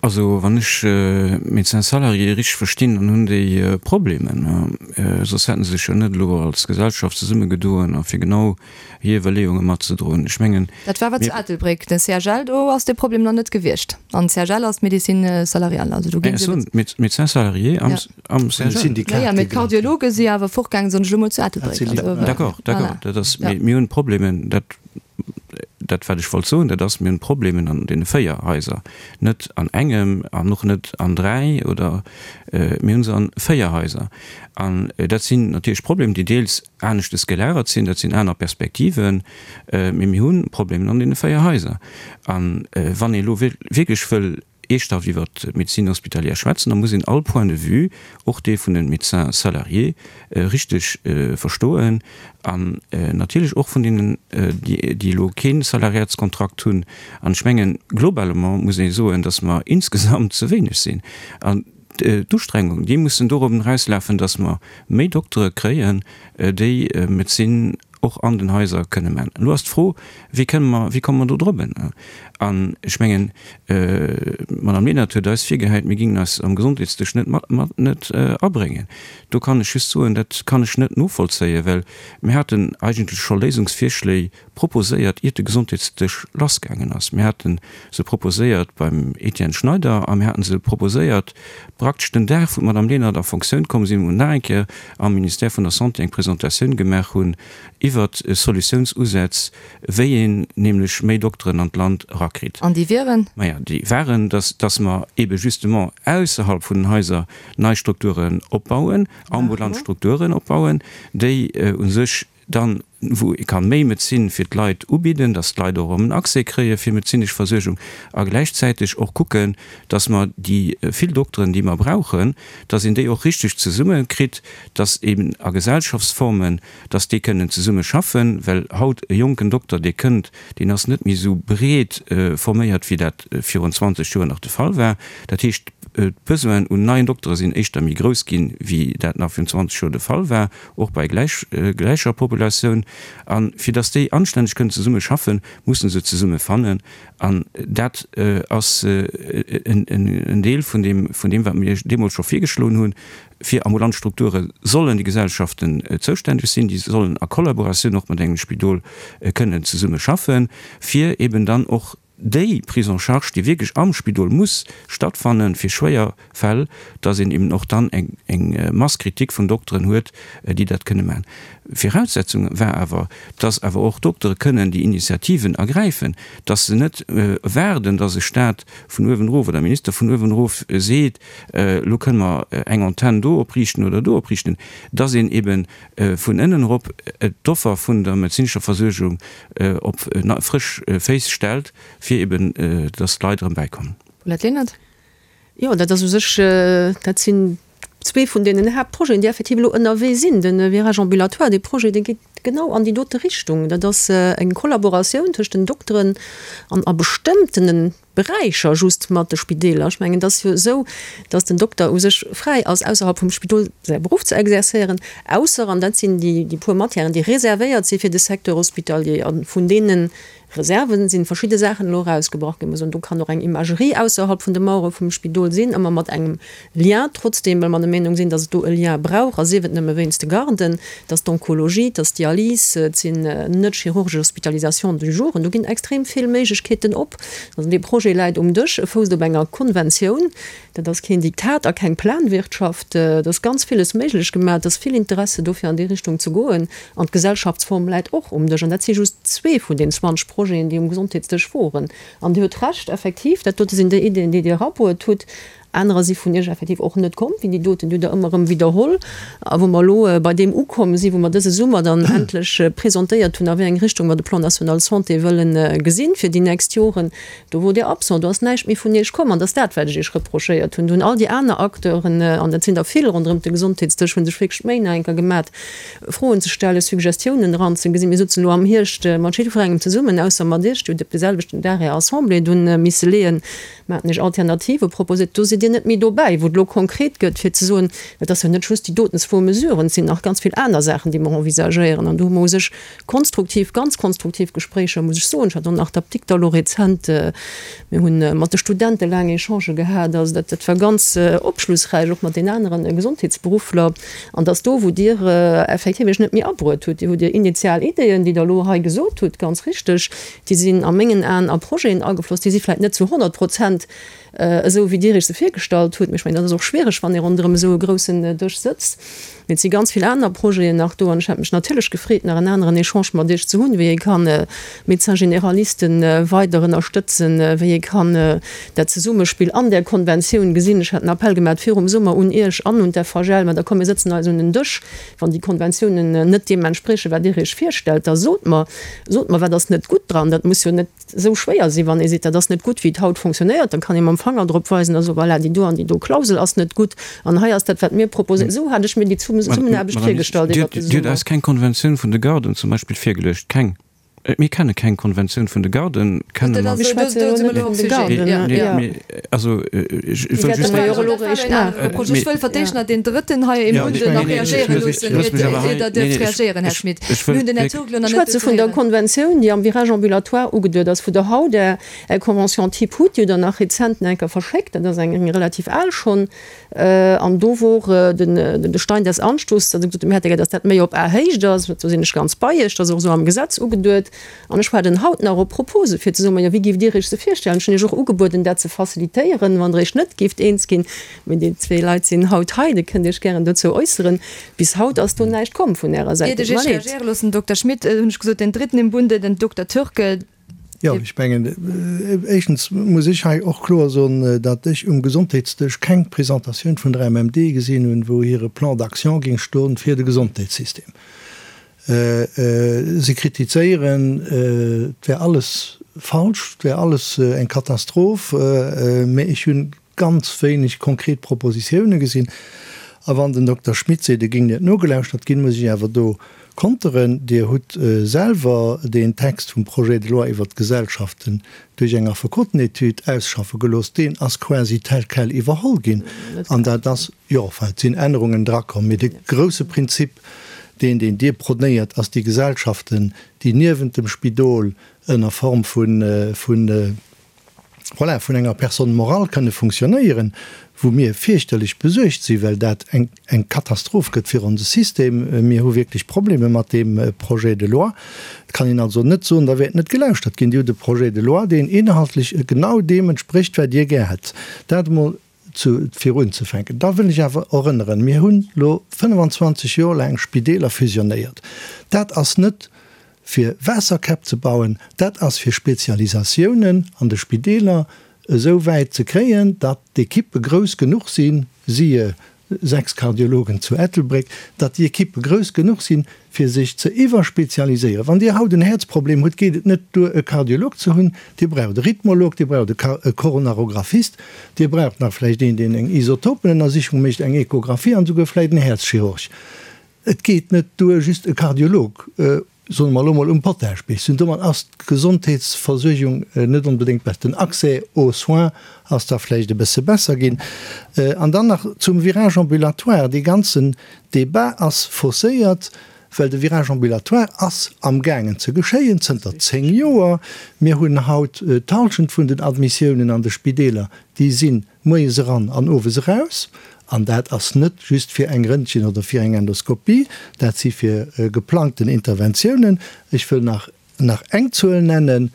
Also wann ech d'Médecins salariés richteg verstinn, dann hunn déi Problemen. Soss hätte se sech jo net elo als Gesellschaft zesummegedoen a fir genau hir Iwwerleeunge matzedroen. Ech mengen, Dat war awer zu Ettelbréck. Den CHL, do ass dee Problem nach net gewiescht. An CHL ass d'Médecine salariale, also do ginn se. Ech soen, d'Médecins salariés am. Am CHL. Ja, mee d'Kardiologe si awer fortgaangen, soen ech elo mol, zu Ettelbréck. D'accord, d'accord. Dat ass, mee mir hunn Problemen, dat, dat wat ech wollt soen, dat ass, mir hunn Problemen an deene 4 Haiser, net an engem an och net an 3 oder, mir hu se an 4 Haiser. An dat sinn natierlech Problemen, déi deels aneschtes gelagert sinn, dat sinn aner Perspektiven, mee mir hu Problemen an deene 4 Haiser. An wann ee elo wierklech wëll Eeschthaft iwwer d'Médecine hospitalière schwätzen, da muss een all Point de vue, och dee vun de Médecins salariés, richteg verstoen an natierlech och vun deenen, déi elo kee Salariatskontrakt hunn. An ech mengen, globalement muss ee soen, dass mer insgesamt ze wéineg sinn. An d'Ustrengung, déi mussen dorobben erauslafen, dass mer méi Doktere kréien, déi Medezin och an den Haiser kënne man. Elo ass d'Fro, Wéi kënne mer, wéi komme mer do drop? An ech mengen, d'Madame Lenert huet eis virgehäit, mir gingen eis am Gesondheetsdësch net mat, mat, net abréngen. Do kann ech just soen, dat kann ech net novollzéien, well mir haten eigentlech scho Léisungsvirschléi proposéiert, iert de Gesondheetsdësch lassgaangen ass. Mir hate se proposéiert beim Etienne Schneider a mir hate se proposéiert praktesch den Dag, wou d'Madame Lenert a Fonctioun komm sinn, wou mer nach eng Kéier am Ministère vun der Santé eng Presentatioun gemaach hunn iwwert Solutiounsusätz, wéi een nämlech méi Dokteren an d'Land erakritt. An déi wieren? Maja, déi waren, dass, dass mer eebe justement ausserhalb vun den Haiser nei Strukturen opbauen, ambulant Strukturen opbauen, déi u sech dann, wou ee ka méi Medezin fir d'Leit ubidden, dass d'Leit och erëm en Accès kréie fir medezinesch Versuergung a gläichzäiteg och kucken, dass mer déi vill Dokteren, déi mer brauchen, dass een déi och richteg zesumme kritt, dass eben a Gesellschaftsformen, dass déi kënnen zesumme schaffen, well haut e jonken Dokter, dee kënnt, deen ass net méi esou breet forméiert, wéi dat virun 20 Joer nach de Fall war. Dat heescht, d'Besoinen un neien Doktere sinn éischter méi grouss ginn, wéi dat nach virun 20 Joer de Fall war, och bei gläicher Populatioun. A fir dass déi anstänneg kënnen zesumme schaffen, musse se zesumme fannen. An dat ass en Deel vun deem, vun deem, wat mir deemools scho virgeschloen hunn, Fir ambulant Strukture sollen déi Gesellschaften zoustänneg sinn. Déi sollen a Kollaboratioun och mat engem Spidol kënnen zesumme schaffen, fir eben dann och déi Prise en charge, déi wierklech am Spidol muss stattfannen, fir schwéier Fäll, dass een eben och dann eng Masse critique vun Dokteren huet, déi dat kënne maachen. Viraussetzung war awer, dass awer och Doktere kënnen déi Initiativen ergräifen, dass se net waarden, dass e Stat vun uewen erof oder e Minister vun uewen erof seet, elo kënne mer eng Antenn do opriichten oder do opriichten, dass een ebe vun ënnen erop d'Offer vun der medezinescher Versuergung op frësch Féiss stellt, fir eben, dass d'Leit erëm bäikommen. Paulette Lenert. Jo, dat ass u sech, dat sinn zwee vun deenen Haaptprojeten, déi effektiv elo ënnerwee sinn. De Virage ambulatoire, dee Projet, dee geet genau an déi dote Richtung. Dat ass eng Kollaboratioun tëscht den Dokteren an a bestëmmtene Beräicher just mat de Spideeler. Ech mengen, et ass jo esou, datt den Dokter u sech fräi ass, ausserhalb vum Spidol säi Beruff ze exerzéieren, ausser, an dat sinn déi puer Matièren, déi reservéiert si fir de Secteur hospitalier, a vun deene Reserven sinn verschidde Saachen elo erausgebrach ginn. Mer soen, do kann och eng Imagerie ausserhalb vun de Mauere vum Spidol sinn, ëmmer mat engem Lien trotzdeem, well mer der Meenung sinn, datt et do e Lien brauch, a sief et nëmme wéinst de Garden, datt d'Onkologie, datt d'Dialys, et sinn net chirurgesch Hospitalisations du jour, do ginn extrem vill Méiglechkeeten op. Also dee Projet läit um Dësch, e fousst op enger Konventioun. Dat ass keen Diktat a keng Planwirtschaft. Et ass ganz villes méiglech gemaach, et ass vill Interesse do fir an déi Richtung ze goen. An d'Gesellschaftsform läit och um Dësch. An dat si just zwee vun den 20 Projeten, déi um Gesondheetsdësch woren. An Dir hutt Recht, effektiv, dat dote sinn déi Ideeën, déi Dir erabruet hutt. Anerer si vun Iech effektiv och net komm, wéi déi doten, déi hutt Der ëmmer erëm widderholl. A wou mer elo bei deem ukomm sinn, wou mer dëse Summer dann endlech presentéiert hunn, a wéi eng Richtung mer de Plan national santé wëllen gesinn fir déi nächst Joren, do wor Dir absent, do ass näischt méi vun Iech komm. An dat ass dat, wat ech Iech reprochéiert hunn. Do hunn all déi aner Acteuren, an dat sinn der vill ronderëm de Gesondheetsdësch, hu sech wierklech d'Méi nach eng Kéier gemat, Froen ze stellen, Suggestiounen eranzegesinn. Mir souzen elo am Hierscht mat jiddwerengem zesummen, ausser mat Iech, Dir hutt op de selwechten Dag Är Assemblée dunn misse leeën, Mer haten Iech Alternative proposéiert. Do sidd Dir net méi dobäi, wou et elo konkret gëtt, fir ze soen, et ass jo net just déi doten zwou Mesuren, et sinn nach ganz vill aner Saachen, déi mer envisagéieren. An do hu mer u sech konstruktiv, ganz konstruktiv Gespréicher, muss ech soen. Ech hat och nach d'Apdikter elo rezent, mir hu mat de Studente laang Echangë gehat. Also dat, dat war ganz opschlussräich, och mat den anere Gesondheetsberuffler. An dass do, wou Dir effektiv Iech net méi abruet hutt, Dir hutt Dir initial Ideeën, déi Der elo hei gesot hutt, ganz richteg, Déi sinn a mengen Aen a Projeten agefloss, déi si vläicht net zu 100 Prozent esou, wéi Dir Iech se virgestallt hutt. Mee ech mengen, dat ass och schwiereg, wann ee ronderëm esou e groussen Dësch sëtzt. Mee et si ganz vill aner Projeten nach do. An ech hätt mech natierlech gefreet, nach en aneren Echange mat Iech ze hunn, wéi ee kann Médecins généralisten weider ënnerstëtzen, wéi ee kann dat Zesummespill an där Konventioun gesinn. Ech hat en Appell gemaat virum Summer un Iech an un d'FHL, mä da komm mir sëtzen eis un en Dësch. Wann déi Konventiounen net deem entspriechen, wat Dir Iech virstellt, da sot mer, sot mer, wat ass net gutt dran. Dat muss jo net esou schwéier sinn, wann ee seet, dat ass net gutt, wéi et haut fonctionnéiert, da kann ee mam Fanger drop weisen a soen, voilà, déi do an déi do Klausel ass net gutt an hei ass dat, wat mir proposéieren. Esou hat ech mir déi Zesummenaarbecht virgestallt iwwert de Summer. Dir hutt eis keng Konventioun vun de Garden zum Beispill virgeluecht. Keng. Mir kenne keng Konventioun vun de Garden, kenne mer. Mir schwätze jo net vun de Garden. Also, ech wëll just. Ech wëll fir d'éischt nach deen Drëtten hei im Bunde nach reagéiere loossen, ier Der dierft reagéieren, Här Schmit. Mir hunn den Här Turk elo nach net. Ech schwätze vun der Konventioun, déi am Virage ambulatoire ugeduet ass, wou Der haut Är Convention type hutt, déi hutt Der nach rezent nach eng Kéier verschéckt, dat ass eng relativ al schonn. An do wor den de Stein des Anstoßes, datt e gesot huet, mir hätte gär, datt dat méi op Ahéicht ass. Do sinn ech ganz bei Iech, dat ass och esou am Gesetz ugeduet. An ech waarden haut nach op Propose fir ze soen, majo, wéi géift Dir Iech se virstellen? Ech hunn Iech och ugebueden, dat ze facilitéieren, wann Der Iech net géift eens ginn. Mee déi zwee Leit sinn haut hei, Dir kënnt Iech gären dozou äusseren. Bis haut ass do näischt komm vun Ärer Säit. Iert ech Tut mer Iech leed. reagéiere loossen, Dokter Schmit, hunn ech gesot, den Dritten im Bunde, den Dokter Türk. Jo, ech mengen, éischtens muss ech hei och kloer soen, datt ech um Gesondheetsdësch keng Presentatioun vun der MMD gesinn hunn, wou hire Plan d'action géing stoen fir de Gesondheetssystem. Si kritizéieren, et wär alles falsch, et wär alles eng Katastroph, mä ech hunn ganz wéineg konkret Propositiounen gesinn. A wann den Dokter Schmit seet, et géing net nogelauschtert ginn, muss ech awer do konteren. Dir hutt selwer deen Text vum Projet de loi iwwert d'Gesellschaften duerch eng Affekotenetüd ausschaffe gelooss. Deen ass quasi tel quel iwwerholl ginn. An dat ass, jo, enfin, et sinn Ännerungen drakomm, mee de grouse Prinzip, deen, deen Dir prônéiert, ass déi Gesellschaften, déi niewent dem Spidol ënner Form vun, vun, voilà, vun enger Personne morale kënne funktionéieren, wou mir fierchterlech besuergt sinn, well dat eng, eng Katastroph gëtt fir onse System. Mir hu wierklech Probleme mat deem Projet de loi. Et kann een also net soen, da wäert net gelauschtert ginn. Dir hutt e Projet de loi, deen inhaltlech genau deem entsprécht, wat Dir gär hätt. Dat emol zu, fir unzefänken. Da wëll ech awer erënneren, Mir hunn elo 25 Joer laang Spideeler fusionéiert. Dat ass net fir Waasserkäpp ze bauen, dat ass fir Spezialisatiounen an de Spideeler esou wäit ze kréien, datt d'Ekippe grouss genuch sinn, siehe 6 Kardiologen zu Ettelbréck, datt déi Ekippe grouss genuch sinn, fir sech ze iwwerspezialiséieren. Wann Dir haut en Häerzproblem hutt, geet et net duer e Kardiolog ze hunn, Dir braucht e Rhythmolog, Dir braucht e Koronarographist, Dir braucht nach vläicht een, deen eng Isotopenennersichung mécht, eng Echographie an esouguer vläicht en Häerzchirurg. Et geet net duer just e Kardiolog, soe mer elo mol, um Potaschbierg ze hunn. Domat ass d'Gesondheetsversuergung net onbedéngt besser. Den Accès aux soins ass da vläicht e bësse besser ginn. An dann nach zum Virage ambulatoire, Dee ganzen Débat ass fausséiert, well de Virage ambulatoire ass amgaangen ze geschéien zënter 10 Joer. Mir hunn haut d'Halschent vun den Admissiounen an de Spideeler, déi sinn moies eran an owes eraus. An dat ass net just fir eng Röntgen oder fir eng Endoskopie, dat si fir geplangten Interventiounen. Ech wëll nach nach eng Zuel nennen,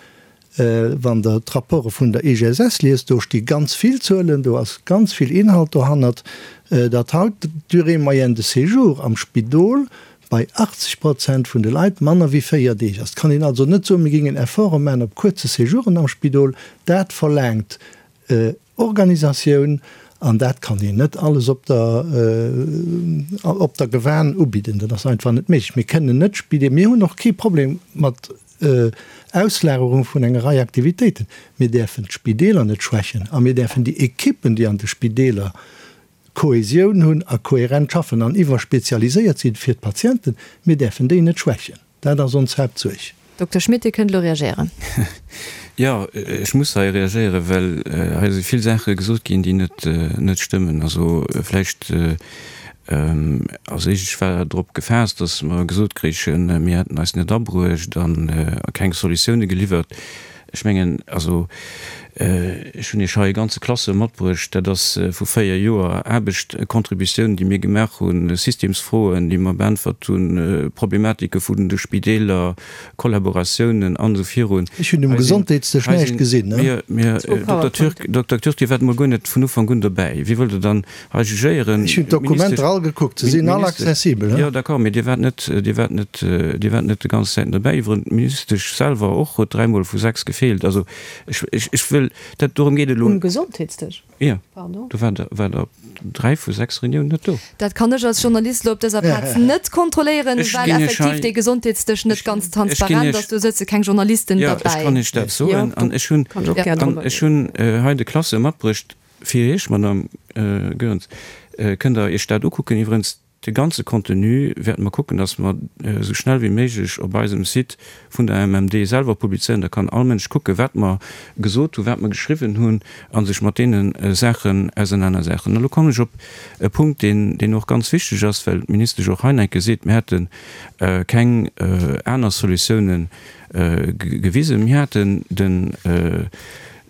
Wann Der d'Rapporte vun der IGSS liest, do sti ganz vill Zuelen, do ass ganz vill Inhalt dohannert, datt haut d'Durée moyenne de séjour am Spidol bei 80 Prozent vun de Leit manner wéi 4 Deeg ass. Et kann een also net soen, mir géingen Efforte maachen op kuerze Séjouren am Spidol. Dat verlaangt Organisatioun. An dat kann een net alles op der, op der Gewan ubidden. Dat ass einfach net méiglech. Mir kënnen net Spidee, mir hunn och kee Problem mat Auslagerung vun enger Rei Aktivitéiten. Mir däerfen d'Spideeler net schwächen a mir däerfen déi Ekippen, déi an de Spideeler Kohäsioun hunn a kohärent schaffen an iwwerspezialiséiert sinn fir d'Patienten, mir däerfen déi net schwächen. Dat ass ons Haaptsuerg. Dokter Schmit, Dir kënnt elo reagéieren. Jo, ech muss hei reagéieren, well hei si vill Saache gesot ginn, déi net, net stëmmen. Also vläicht als éischt, ech war drop gefaasst, datt mer gesot kréichen, mir hätten eis net abruecht a keng Solutioune geliwwert. Ech mengen, also ech hunn Iech hei e ganze Classeur matbruecht, dat ass vu 4 Joer Aarbecht, Contributiounen, déi mir gemaach hunn, Systemsfroen, déi mer beäntwert hunn, Problematike vun de Spideeler, Kollaboratiounen an esou virun. Ech hunn um Gesondheetsdësch näischt gesinn. Dokter Türk, Dokter Türk, Dir waart emol guer net vun Ufank un dobäi. Wéi wëllt Der dann hei jugéieren? Ech hunn d'Dokumenter all gekuckt, se sinn all accessibel. Jo, d'accord, mee Dir waart net, Dir waart net, Dir waart net déi ganz Zäiten dobäi. Iwweren d'Ministesch selwer och huet dräimol vu 6 gefeelt. Also ech, ech, ech wëll dat, dorëm geet et elo. Um Gesondheetsdësch? Jo, do war Der, war Der op dräi vu 6 Reuniounen net do. Dat kann ech als Journalist elo op dëser Plaz net kontrolléieren, well effektiv dee Gesondheetsdësch net ganz transparent ass. Do sëtze keng Journalisten derbäi. Jo, ech kann Iech dat soen. An ech hunn, an ech hunn hei de Classeur matbruecht. Fir Iech, Madame Goerens, kënnt Der Iech dat ukucken. Iwwerens, de ganze Contenu wäerte mer kucken, dass mer esou schnell wéi méiglech op eisem Site vun der MMD selwer publizéieren. Da kann all Mënsch kucken, wat mer gesot hunn, wat mer geschriwwen hunn a sech mat deene Saachen ausernanersetzen. Elo kommen ech op e Punkt, deen, deen och ganz wichteg ass, well d'Ministesch och hei nach eng Kéier seet, mir hätte keng aner Solutiounen gewisen. Mir haten den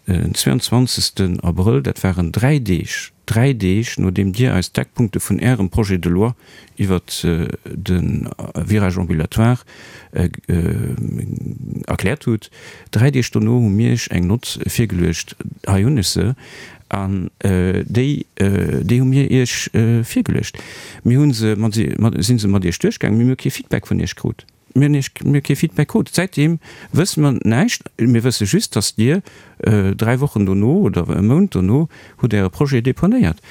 Den 22 Abrëll, dat waren dräi Deeg, dräi Deeg nodeem Dir eis d'Eckpunkte vun Ärem Projet de loi iwwert de Virage ambulatoire erkläert hutt, dräi Deeg dono hu mir Iech eng Nott virgeluecht, hei hunn ech se, an déi, déi hu mir Iech virgeluecht. Mir hu se mat, si se mat Iech duerchgaangen, mee mir hu kee Feedback vun Iech krut. Mir hunn iech, mir hu kee Feedback krut. Säitdeem wësse mer näischt. Mir wësse just, datt Dir dräi Wochen dono oder e Mount dono hutt Äre Projet deponéiert.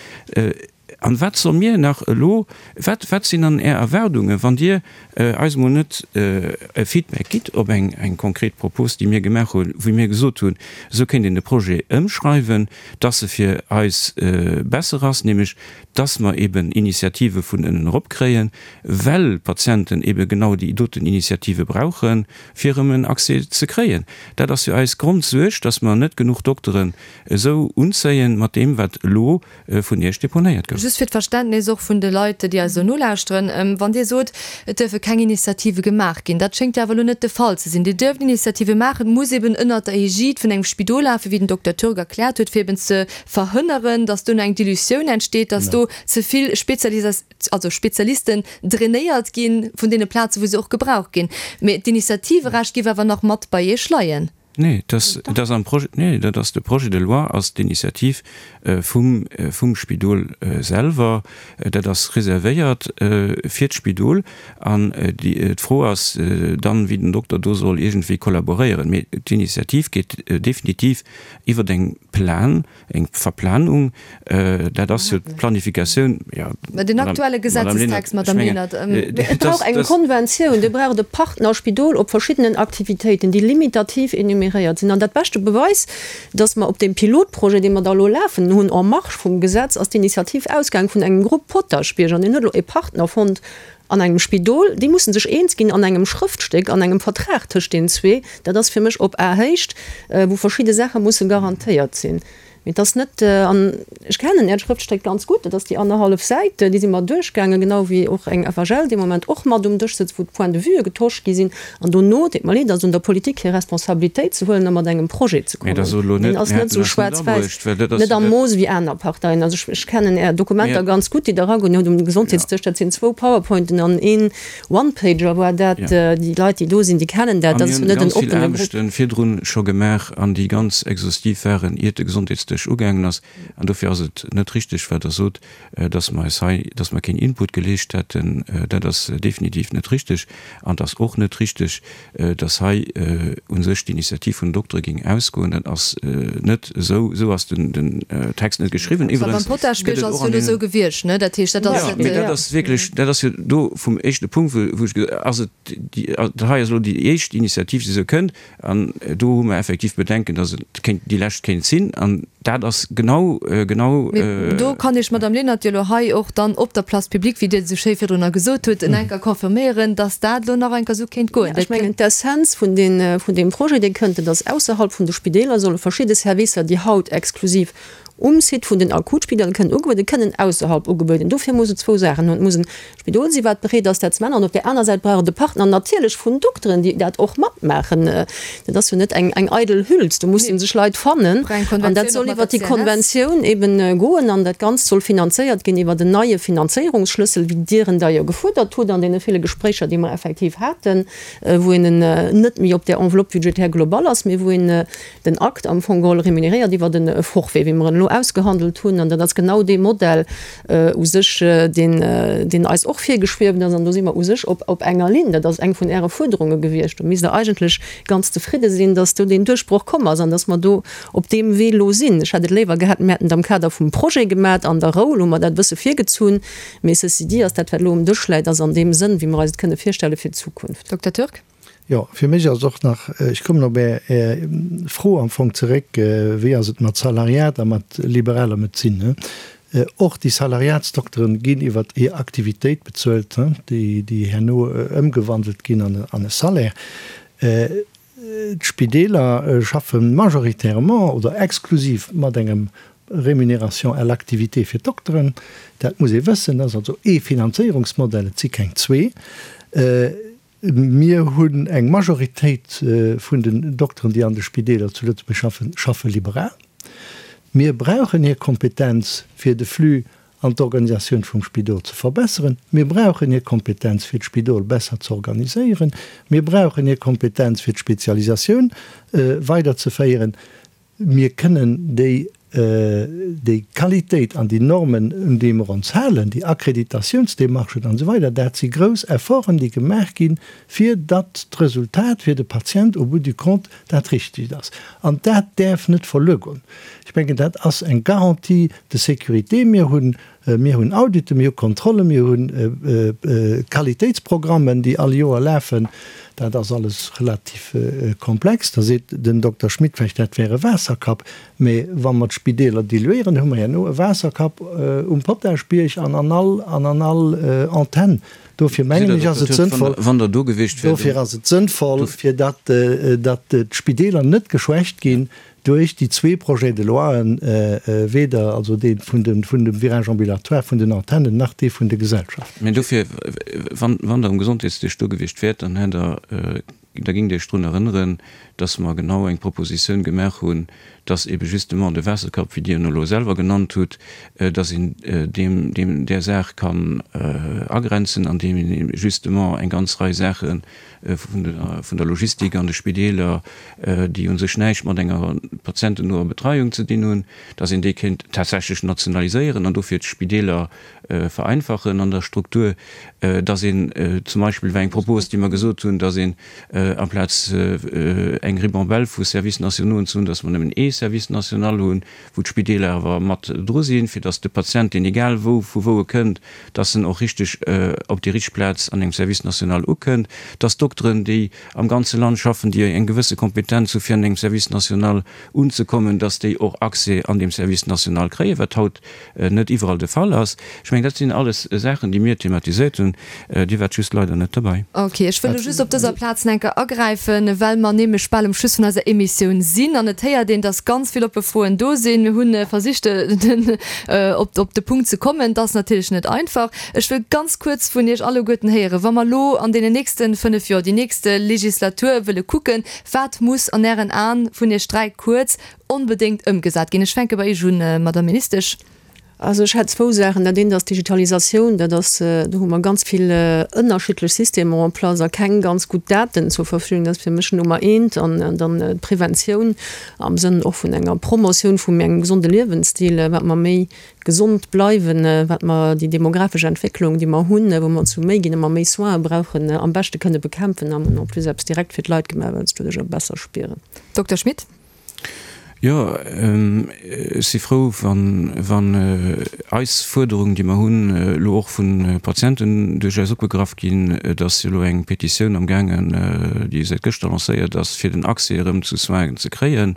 An wat solle mir nach elo, wat, wat sinn dann Är Erwaardungen, wann Dir eis emol net e Feedback gitt op eng, eng konkret Propos, déi mir gemaach hunn, wou mir gesot hunn, esou kéint een de Projet ëmschreiwen, dass e fir eis besser ass, nämlech dass mer eben Initiative vun ënnen erop kréien, well d'Patienten ebe genau déi doten Initiative brauchen, fir erëm en Accès ze kréien. Dat ass jo eis Grondsuerg, dass mer net genuch Dokteren esou unzéien, mat deem, wat elo vun Iech deponéiert gouf. Just fir d'Verständnis och vun de Leit, déi eis elo nolauschteren, Wann Dir sot, et duerfe keng Initiative gemaach ginn, dat schéngt jo awer elo net de Fall ze sinn. Dir duerft Initiative maachen, et muss eben ënnert der Egide vun engem Spidol lafen, wéi den Dokter Türk erkläert huet, fir eben ze verhënneren, dass duerno eng Dilutioun entsteet, dass do ze vill Spezialisa. also Spezialisten drainéiert gi vun deene Plazen, wou se och gebraucht ginn. Mee d'Initiativerecht géif awer nach mat bei Iech leien. Nee, dat ass am Projet, nee, dat ass de Projet de loi ass d'Initiativ vum, vum Spidol selwer. Dat ass reservéiert fir d'Spidol. An déi, d'Fro ass dann, wéi den Dokter do soll iergendwéi kollaboréieren. Mee d'Initiativ geet definitiv iwwer eng Plan, Eng Verplanung, dat ass jo d'Planifikatioun, jo. Mä den aktuelle Gesetzestext, Madame Lenert. Et brauch eng Konventioun, do brauch et e Partnerspidol op verschiddenen Aktivitéiten, déi limitativ enumeréiert sinn. An dat beschte Beweis, dass mer op deem Pilotprojet, dee mer da elo lafen hunn, en marge vum Gesetz, ass d'Initiativ ausgaang vun engem Grupp Potaschbierg an deen huet elo e Partner fonnt an engem Spidol. Déi musse sech eens ginn an engem Schrëftstéck, an engem Vertrag tëscht deenen zwee. Dat ass fir mech op Ahéicht, wou verschidde Saache musse garantéiert sinn. Mee et ass net, an ech kennen Äert Schrëftstéck ganz gutt, dat ass déi annerhallef Säit, déi si mer duerchgaangen, genau wéi och eng FHL dee Moment och mat um Dësch sëtzt, wou d'Points de vuë getosch gi sinn. An dono, deet mer leed, ass et un der Politik hir Responsabilitéit ze huelen a mat engem Projet ze kommen. Deen ass net esou schwaarz-wäiss, net am Mooss wéi aner Parteien. Also ech kennen Är Dokumenter ganz gutt, déi Der eragoen hutt um Gesondheetsdësch. Dat sinn zwou Powerpointen an een One-Pager war dat. Déi Leit, déi do sinn, déi kennen dat. Dat ass jo net en oppene Grupp. Mir hunn ganz vill Aarbechte virdrun scho gemaach an déi ganz exhaustiv waren, iert de Gesondheetsdësch. sech ugaangen ass. An dofir ass et net richteg, wat Der sot, dass mer eis hei, dass mer keen Input geleescht hätten. Dat ass definitiv net richteg. An et ass och net richteg, dass hei u sech d'Initiativ vun den Doktere géing ausgoen. Dat ass net esou. Esou ass den Text net geschriwwen. Iwwerens gëtt et och an deenen. Jo, mee dat ass wierklech, dat ass jo do vum éischte Punkt, wou ech gesot, ass et déi, dat hei ass elo déi éischt Initiativ, déi esou kënnt. An do hu mer effektiv Bedenken, dass et kéint déi lescht kéint sinn. An dat ass genau, genau. Mee do kann Iech d'Madame Lenert jo elo hei och dann op der Place publique, wéi Dir et esou schéi virdrunner gesot hutt, en enker confirméieren, dass dat elo nach enker esou kéint goen. Ech mengen, d'Essenz vun deem Projet, dee kënnt, et ass, ausserhalb vun de Spideeler solle verschidde Servicer, déi haut exklusiv um Site vun den Akutspideeler kënnen ugebueden, kënnen ausserhalb ugebueden. Dofir muss et zwou Saachen hunn. Et muss en Spidol si wat bereet ass dat ze maachen an op där aner Säit brauch et e Partner natierlech vun Dokteren, déi dat och matmaachen. Dat ass jo net eng eng eidel Hüls, do musse sech Leit fannen an dat soll iwwert déi Konventioun eben goen an dat Ganzt soll finanzéiert ginn iwwert en neie Finanzéierungsschlëssel, wéi Dir en da jo gefuerdert hutt an deene ville Gespréicher, déi mer effektiv haten, wou een en net méi op där Enveloppe budgétaire globale ass, mee wou een den Akt am Fong geholl remuneréiert iwwert e Forfait, wéi mer en elo ausgehandelt hunn. An dat ass genau dee Modell u sech, deen, deen eis och virgeschwieft ass. An do si mer u sech op, op enger Linn. Dat ass eng vun Äre Fuerderunge gewiescht. Do misst Der eigentlech ganz zefridde sinn, dass do deen Duerchbroch komm ass an dass mer do op deem Wee elo sinn. Ech hätt et léiwer gehat, mir hätten et am Kader vum Projet gemat. An der Rou, elo hu mer dat e bësse virgezunn. Mee ceci dit ass dat, wat elo um Dësch läit, ass an deem Sënn, wéi mer eis et kënne virstelle fir d'Zukunft. Dokter Türk. Jo, fir mech ass och nach, ech kommen op Är Fro am Fong zeréck, wéi ass et mat Salariat a mat liberaler Medezin? Och déi Salariatsdokteren ginn iwwer hir Aktivitéit bezuelt, déi herno ëmgewandelt ginn an e Salaire. D'Spideeler schaffe majoritairement oder exklusiv mat engem Rémunération à l'activité fir d'Dokteren. Dat muss ee wëssen. Dat ass also ee Finanzéierungsmodell, et si keng zwee. Mir hunn eng Majoritéit vun den Dokteren, déi an de Spideeler zu Lëtzebuerg schaffen, schaffe liberal. Mir brauchen hir Kompetenz, fir de Flux an d'Organisatioun vum Spidol ze verbesseren. Mir brauchen hir Kompetenz, fir d'Spidol besser ze organiséieren. Mir brauchen hir Kompetenz, fir d'Spezialisatioun weiderzeféieren. Mir kënnen déi, déi Qualitéit an déi Normen, un déi mer ons halen, déi Akkreditatiounsdemarchen an esou weider, dat si grouss Efforten, déi gemaach ginn, fir datt d'Resultat fir de Patient au bout du compte dat Richtegt ass. An dat däerf net verluer goen. Ech mengen, dat ass eng Garantie de sécurité. Mir hunn Mir hunn Auditen, mir hu Kontrollen, mir hu Qualitéitsprogrammen, déi all Joer lafen. Dat ass alles relativ komplex. Da seet den Dokter Schmit vläicht, dat wär e Waasserkapp. Mä wa mer d'Spideeler diluéieren, hu mer herno e Waasserkapp um Potaschbierg an an all an an all Antenn. Dofir mengen ech, ass et sënnvoll, dofir ass et sënnvoll, fir datt datt d'Spideeler net geschwächt ginn duerch déi zwee Projets de loien, weder also dee vun dem Virage ambulatoire vun den Antennen nach dee vun de Gesellschaften. Mä dofir, wann Der um Gesondheetsdësch do gewiescht wäert, dann hätt Der, da géingt Dir Iech drun erënneren, dass mer genau eng Propositioun gemaach hunn, dass ebe justement de Waasserkapp, wéi Dir en elo selwer genannt hutt, dass een deem, deem, där Saach kann agrenzen, andeem een justement eng ganz Rei Saache vun der Logistik an de Spideeler, déi u sech näischt mat enger patientennoer Betreiung ze dinn hunn, dass een déi kéint tatsächlech nationaliséieren an dofir d'Spideeler vereinfachen an der Struktur, dass een zum Beispill, war eng Propos, déi mer gesot hunn, dass een amplaz eng Ribambelle vu Services nationauxen ze hunn, dass mer nëmmen ee Service national hunn, wou d'Spideeler awer mat dru sinn, fir dass de Patient, deen egal wou, vu wou e kënnt, dass en och richteg op déi richteg Plaz an engem Service national ukënnt, dass d'Dokteren, déi am ganze Land schaffen, déi eng gewësse Kompetenz hu fir an engem Service national unzekommen, dass déi och Accès an deem Service national kréien, wat haut net iwwerall de Fall ass. Ech mengen, dat sinn alles Saachen, déi mir thematiséiert hunn. Dir waart just leider net dobäi. Ok, ech wëll elo just op dëser Plaz nach eng Kéier agräifen, well mer nämlech bal um Schluss vun eiser Emissioun sinn an et héiert een, dass ganz vill oppe Froen do sinn. Mir hu versicht, op op de Punkt ze kommen. Et ass natierlech net einfach. Ech wëll ganz kuerz vun Iech alleguerten héieren, wa mer elo an deenen nächste 5 Joer, déi nächste Legislatur wëlle kucken, wat muss an Ären Aen vun Iech 3 kuerz onbedéngt ëmgesat ginn? Ech fänke bei Iech un, Madamm Ministesch. Also ech hätt zwou Saachen. Dat eent ass d'Digitalisatioun. Dat ass, do hu mer ganz vill ënnerschiddlech Systemer en place a keng ganz gutt Daten zur Verfügung. Dat ass fir mech Nummer eent. An dann d'Preventioun am Sënn och vun enger Promotioun vum engem gesonde Liewensstil, wat mer méi gesond bleiwen, wat mer déi demografesch Entwécklung, déi mer hunn, wou mer zu méi ginn a mer méi Soine brauchen, am beschte kënne bekämpfen. A mer hunn en plus eppes direkt fir d'Leit gemaach, well se doduerch och besser spieren. Dokter Schmit. Jo, ech si frou, wann eis Fuerderungen, déi mer hunn, elo och vu Patienten duerchaus opgegraff ginn. Et ass jo elo eng Petitioun amgaangen, déi säit gëschter lancéiert ass, fir den Accès erëm zu Soinen ze kréien.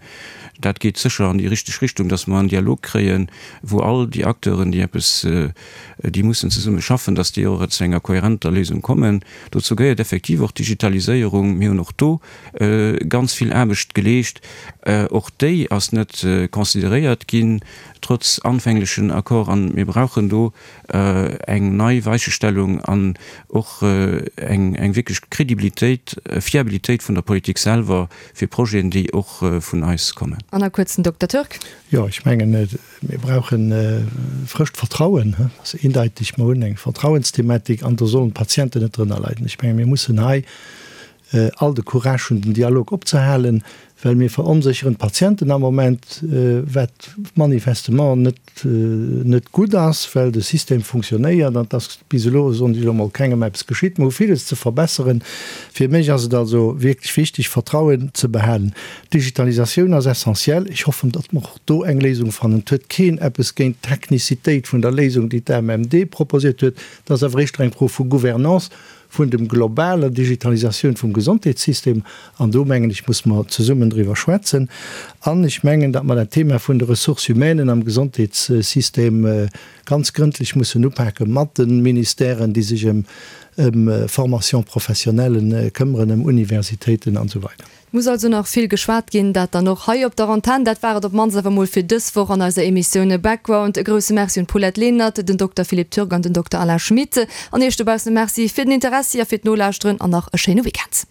Dat geet sécher an déi richteg Richtung, datt mer en Dialog kréien, wou all déi Acteuren, déi eppes, déi mussen zesumme schaffen, datt déi och zu enger kohärenter Léisung kommen. Dozou gehéiert effektiv och d'Digitaliséierung. Mir hunn och do ganz vill Aarbecht geleescht. Och déi ass net consideréiert ginn, trotz anfänglechen Accord. An mir brauchen do eng nei Weichestellung an och eng wierklech Crédibilitéit, Fiabilitéit vun der Politik selwer fir Projeten, déi och vun eis kommen. An a kuerz den Dokter Türk. Jo, ech mengen, mir brauche frëscht Vertrauen. Dat ass eendeiteg. Mer hunn eng Vertrauensthematik an do sollen d'Patienten net drënner leiden. Ech menge mir mussen hei all de Courage hunn, den Dialog opzehalen, well mir veronsécheren d'Patienten am Moment, wat manifestement net net gutt ass, well de System funktionéiert an et ass bis elo, soen ech elo mol, kengem eppes geschitt. Mer hu villes ze verbesseren. Fir mech ass et also wierklech wichteg, Vertrauen ze behalen. D'Digitalisatioun ass essentiell. Ech hoffen, datt mer och do eng Léisung fannen. Et huet keen eppes géint d'Technicitéit vun der Léisung, déi d'AMMD proposiert huet. Et ass awer éischter eng Fro vu Gouvernance. vun dem globaler Digitalisatioun vum Gesondheetssystem, an do mengen ech muss mer zesummen driwwer schwätzen, an ech mengen, datt mer dat Thema vun de Ressources humaines am Gesondheetssystem ganz grëndlech mussen upake mat de Ministèren, déi sech ëm Formation professionnelle këmmeren, ëm Universitéiten an esou weider. Muss also nach vill geschwat ginn, dat dann och hei op der Antenn. Dat war et op d'mannst awer mol fir dës Woch an eiser Emissioun Background. E grousse Merci un d'Paulette Lenert, den Dokter Philippe Türk an den Dokter Alain Schmit. An Iech dobaussen e Merci fir den Interessi a fir d'Nolauschteren an nach e schéine Weekend.